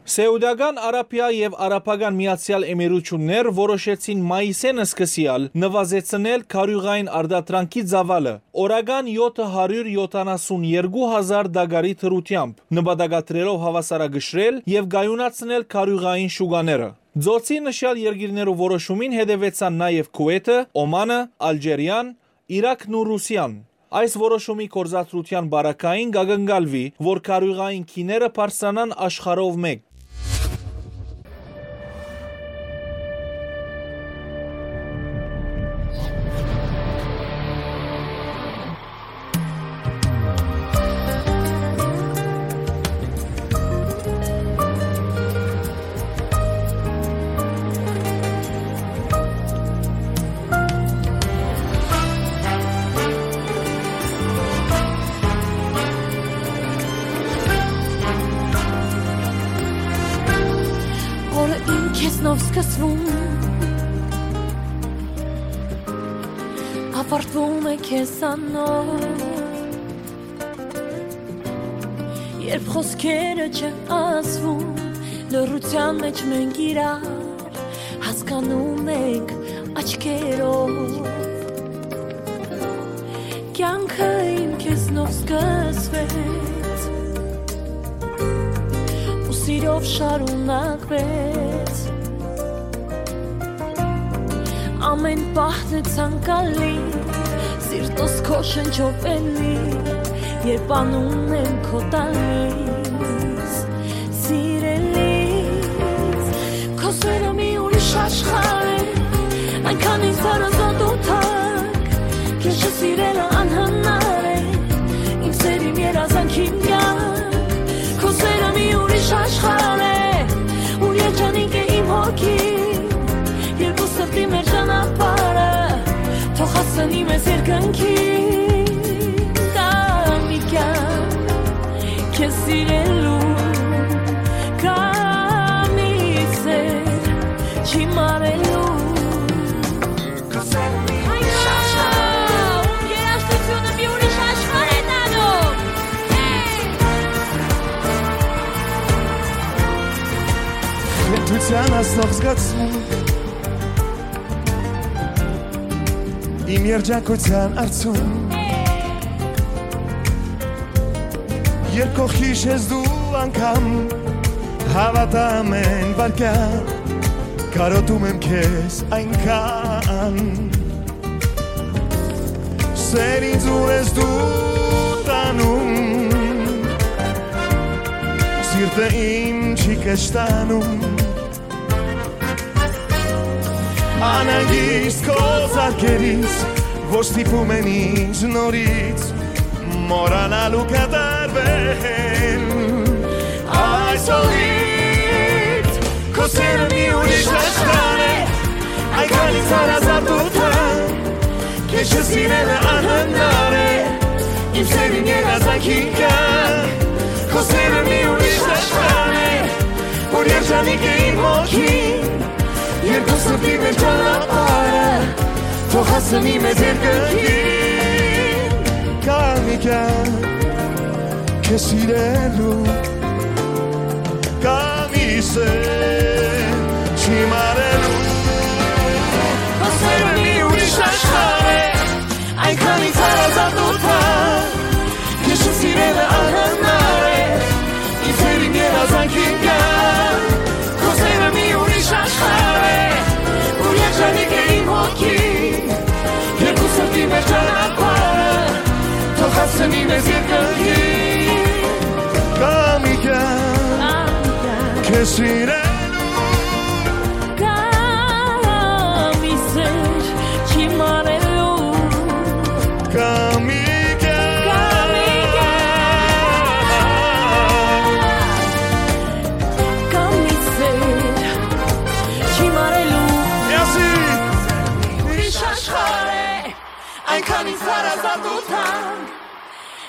Սէուտական Արաբիա եւ Արաբական Միացեալ Էմիրութիւններ որոշեցին մայիսէն սկսեալ նուազեցնել քարիւղային արտադրանքի ծաւալը, օրական յոթ հարիւր յոթանասուն երկու հազար տակարի դրութեամբ, նպատակադրելով հաւասարակշռել եւ կայունացնել քարիւղային շուկաները։ Ծոցի նշեալ երկիրներու որոշումին հետեւեցան նաեւ Քուէյթը, Օմանը, Ալժիրիան, Իրաքն ու Ռուսիան։ Այս որոշումի գործադրութեան պարագային կ'ակնկալուի, որ քարիւղային գիները բարձրանան աշխարհով մէկ։ Օրը իմ քեզնով սկսվում, աւարտվում է քեզանով։ Երբ խօսքերը չեն ասվում, լռութեան մէջ մենք իրար հասկանում ենք աչքերով։ Կյանքը իմ քեզնով սկսվեց ու սիրով շարունակվեց։ Ամէն պահ դե ցանկալի, սիրտս քո շնչով էլի, երբ անում եմ քո տալիս, սիրելիս, քո սերը մի ուրիշ աշխարհ է, այնքան ինձ հարազատ ու թանկ, քեզ չսիրելը անհնար է, իմ սեր, իմ երազանք, իմ կյանք, քո սերը մի ուրիշ աշխարհ է, ու երջանիկ է իմ հոգին, երկու սրտի մեր ճանապարհը, թող հասնի մեզ երկնքին, կա մի կյանք, քեզ սիրելու, կա մի սեր, Ցան ասող զգացում իմ երջանկութեան արցուն։ Երբ կողքիս ես դու անգամ, հավատամ են վարկյա, կարոտում եմ քեզ այնքան։ Սեր ինձ ու ես դու տանում, սիրտը իմ չի կշտանում։ Անհանգիստ քո զարկերից, որ ստիպում են ինձ նորից մոռանալ ու կատարվել։ Այսօրից քո սերը մի ուրիշ աշխարհ է, այնքան ինձ հարազատ ու թան, քեզ չսիրելը անհնար է, իմ սերին երազանքին կան, քո սերը մի ուրիշ աշխարհ է, որ երջանիկ է իմ հոգին, երկու սրտի մեր ճանապարհը, թող հասնի մեզ երկնքին։ Կա մի կյանք քեզ սիրելու, կա մի սեր չիմ արելու։ Քո սերը մի ուրիշ աշխարհ է, այնքան ինձ հարազատ ու թան, քեզ չսիրելը անհնար է, իմ սերին երազանքին կան, քո սերը մի ուրիշ աշխարհ է, որ երջանիկ է իմ հոգին, երկու սրտի մեր ճանապարհը, թող հասնի մեզ երկնքին։ Կա մի կյանք քեզ սիրելու, կա մի սեր չիմ արելու, կա մի կյանք, կա մի կյանք, կա մի սեր չիմ արելու։ Ուրիշ աշխարհ է, այնքան ինձ հարազատ ու թանկ,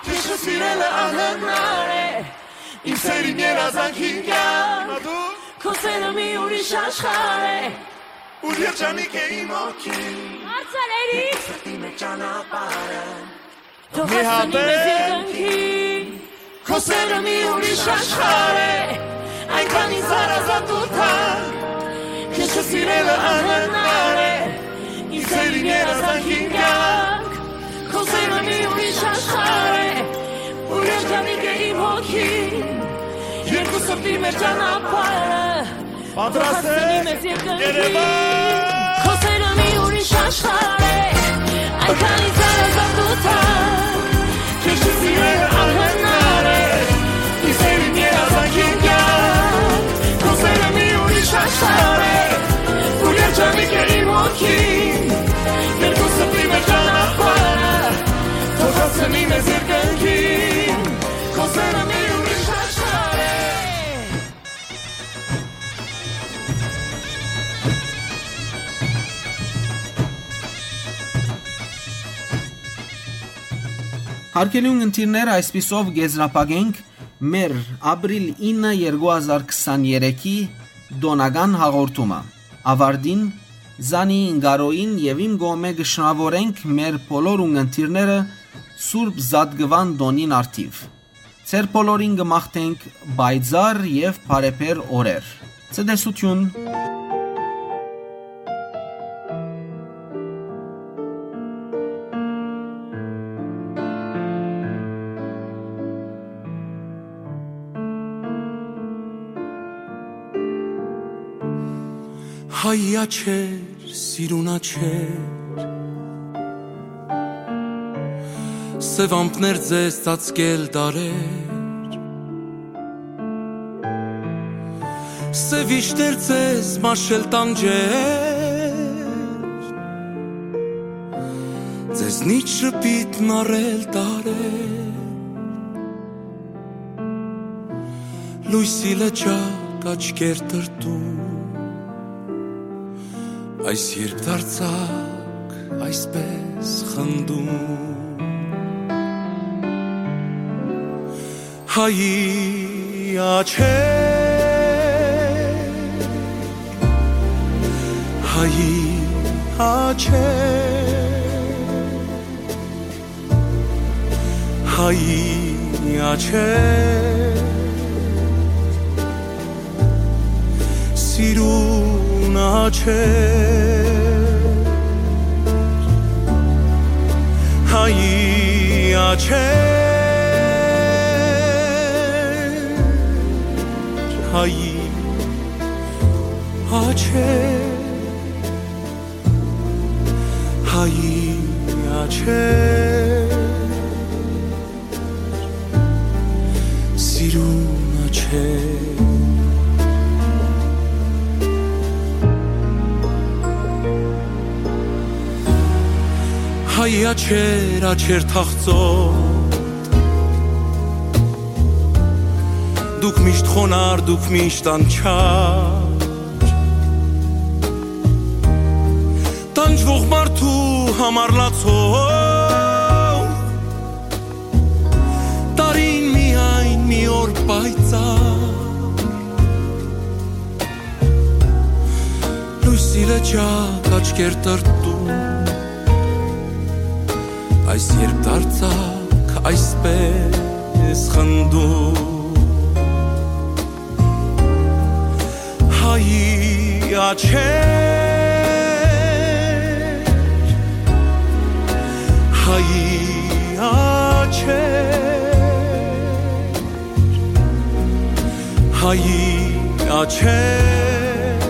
քեզ չսիրելը անհնար է, իմ սերին երազանքին կյանք, քո սերը մի ուրիշ աշխարհ է, ուր երջանիկ է իմ հոգին։ Հարցալերից սրտի մեջ ճանապարհը, թող մի հասնի հատ մեզ է երկնքին, քո սերը մի ուրիշ աշխարհ է, այնքան ինձ հարազատ ու թանկ, քեզ չսիրելը անհնար է, իմ սերին երազանքին կյանք, քո սերը մի ուրիշ աշխարհ է, ուր երջանիկ է իմ հոգին, երկու սրտի մեր ճանապարհը, պատրաստ եք, Երևան։ Քո սերը մի ուրիշ աշխարհ է, այնքան ինձ հարազատ ու թանկ, քեզ չսիրելը անհնար է, իմ սերին երազանքին կյանք, քո սերը մի ուրիշ աշխարհ է, ուր երջանիկ է իմ հոգին, երկու սրտի մեր ճանապարհը, թող հասնի մեզ երկնքին, քո սերը մի ուրիշ աշխարհ է։ Հարգելի ունգընտիրներ, այսպիսով կ'եզրափակենք մեր ապրիլ ինը երկու հազար քսաներեքի տօնական հաղորդումը։ Աւարտին Զանի Ինկարոյին եւ իմ կողմէ կը շնորհաւորենք մեր բոլոր ունգընտիրները Սուրբ Զատկուան տօնին առթիւ։ Ձեր բոլորին կը մաղթենք պայծառ եւ բարեբեր օրեր։ Ցտեսութիւն։ Հայ աչքեր, սիրուն աչքեր, սեւ ամպներ ձեզ ծածկել դարեր, սեւ իշտեր ձեզ մաշել տանջեր, ձեզնից շպիտ մարել տարեր, լոյսի լճակ աչքեր տրտում, այս երբ դարձակ այսպես խնդում։ Հայի աչքեր, հայի աչքեր, հայի աչքեր, Սիրուն աչքեր, հայի աչքեր, հայի աչքեր, հայի աչքեր, սիրուն աչքեր։ Հայի աչքեր, աչքեր թախծոտ, դուք միշտ խոնար, դուք միշտ անչափ, տանջուող մարդու համար լացող, տարին միայն մի օր պայծառ, լոյսի լճակ աչքեր տրտում, այս երբ դարձաք այսպես խնդում։ Հայի աչքեր, հայի աչքեր, հայի աչքեր,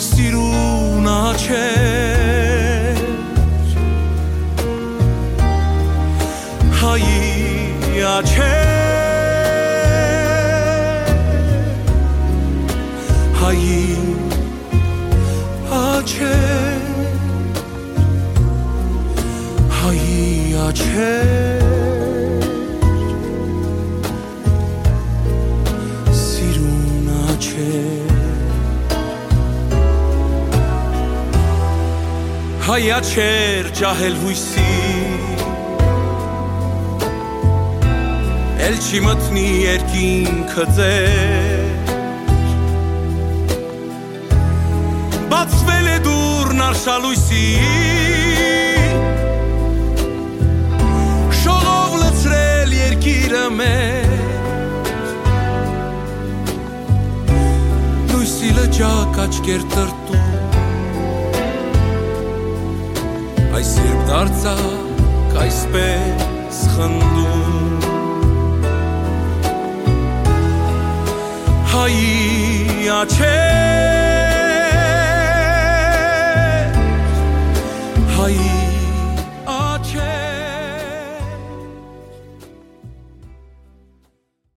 սիրուն աչքեր, հայի աչքեր, հայի աչքեր, հայի աչքեր, սիրուն աչքեր։ Հայ աչքեր ջահել յոյսի, էլ չի մտնի երկինքը ձեր։ Բացվել է դուռն արշալոյսի, շողով լցրել երկիրը մեր։ Լոյսի լճակ աչքեր տրտում, այս երբ դարձաք այսպես խնդում։ Հայի աչքեր,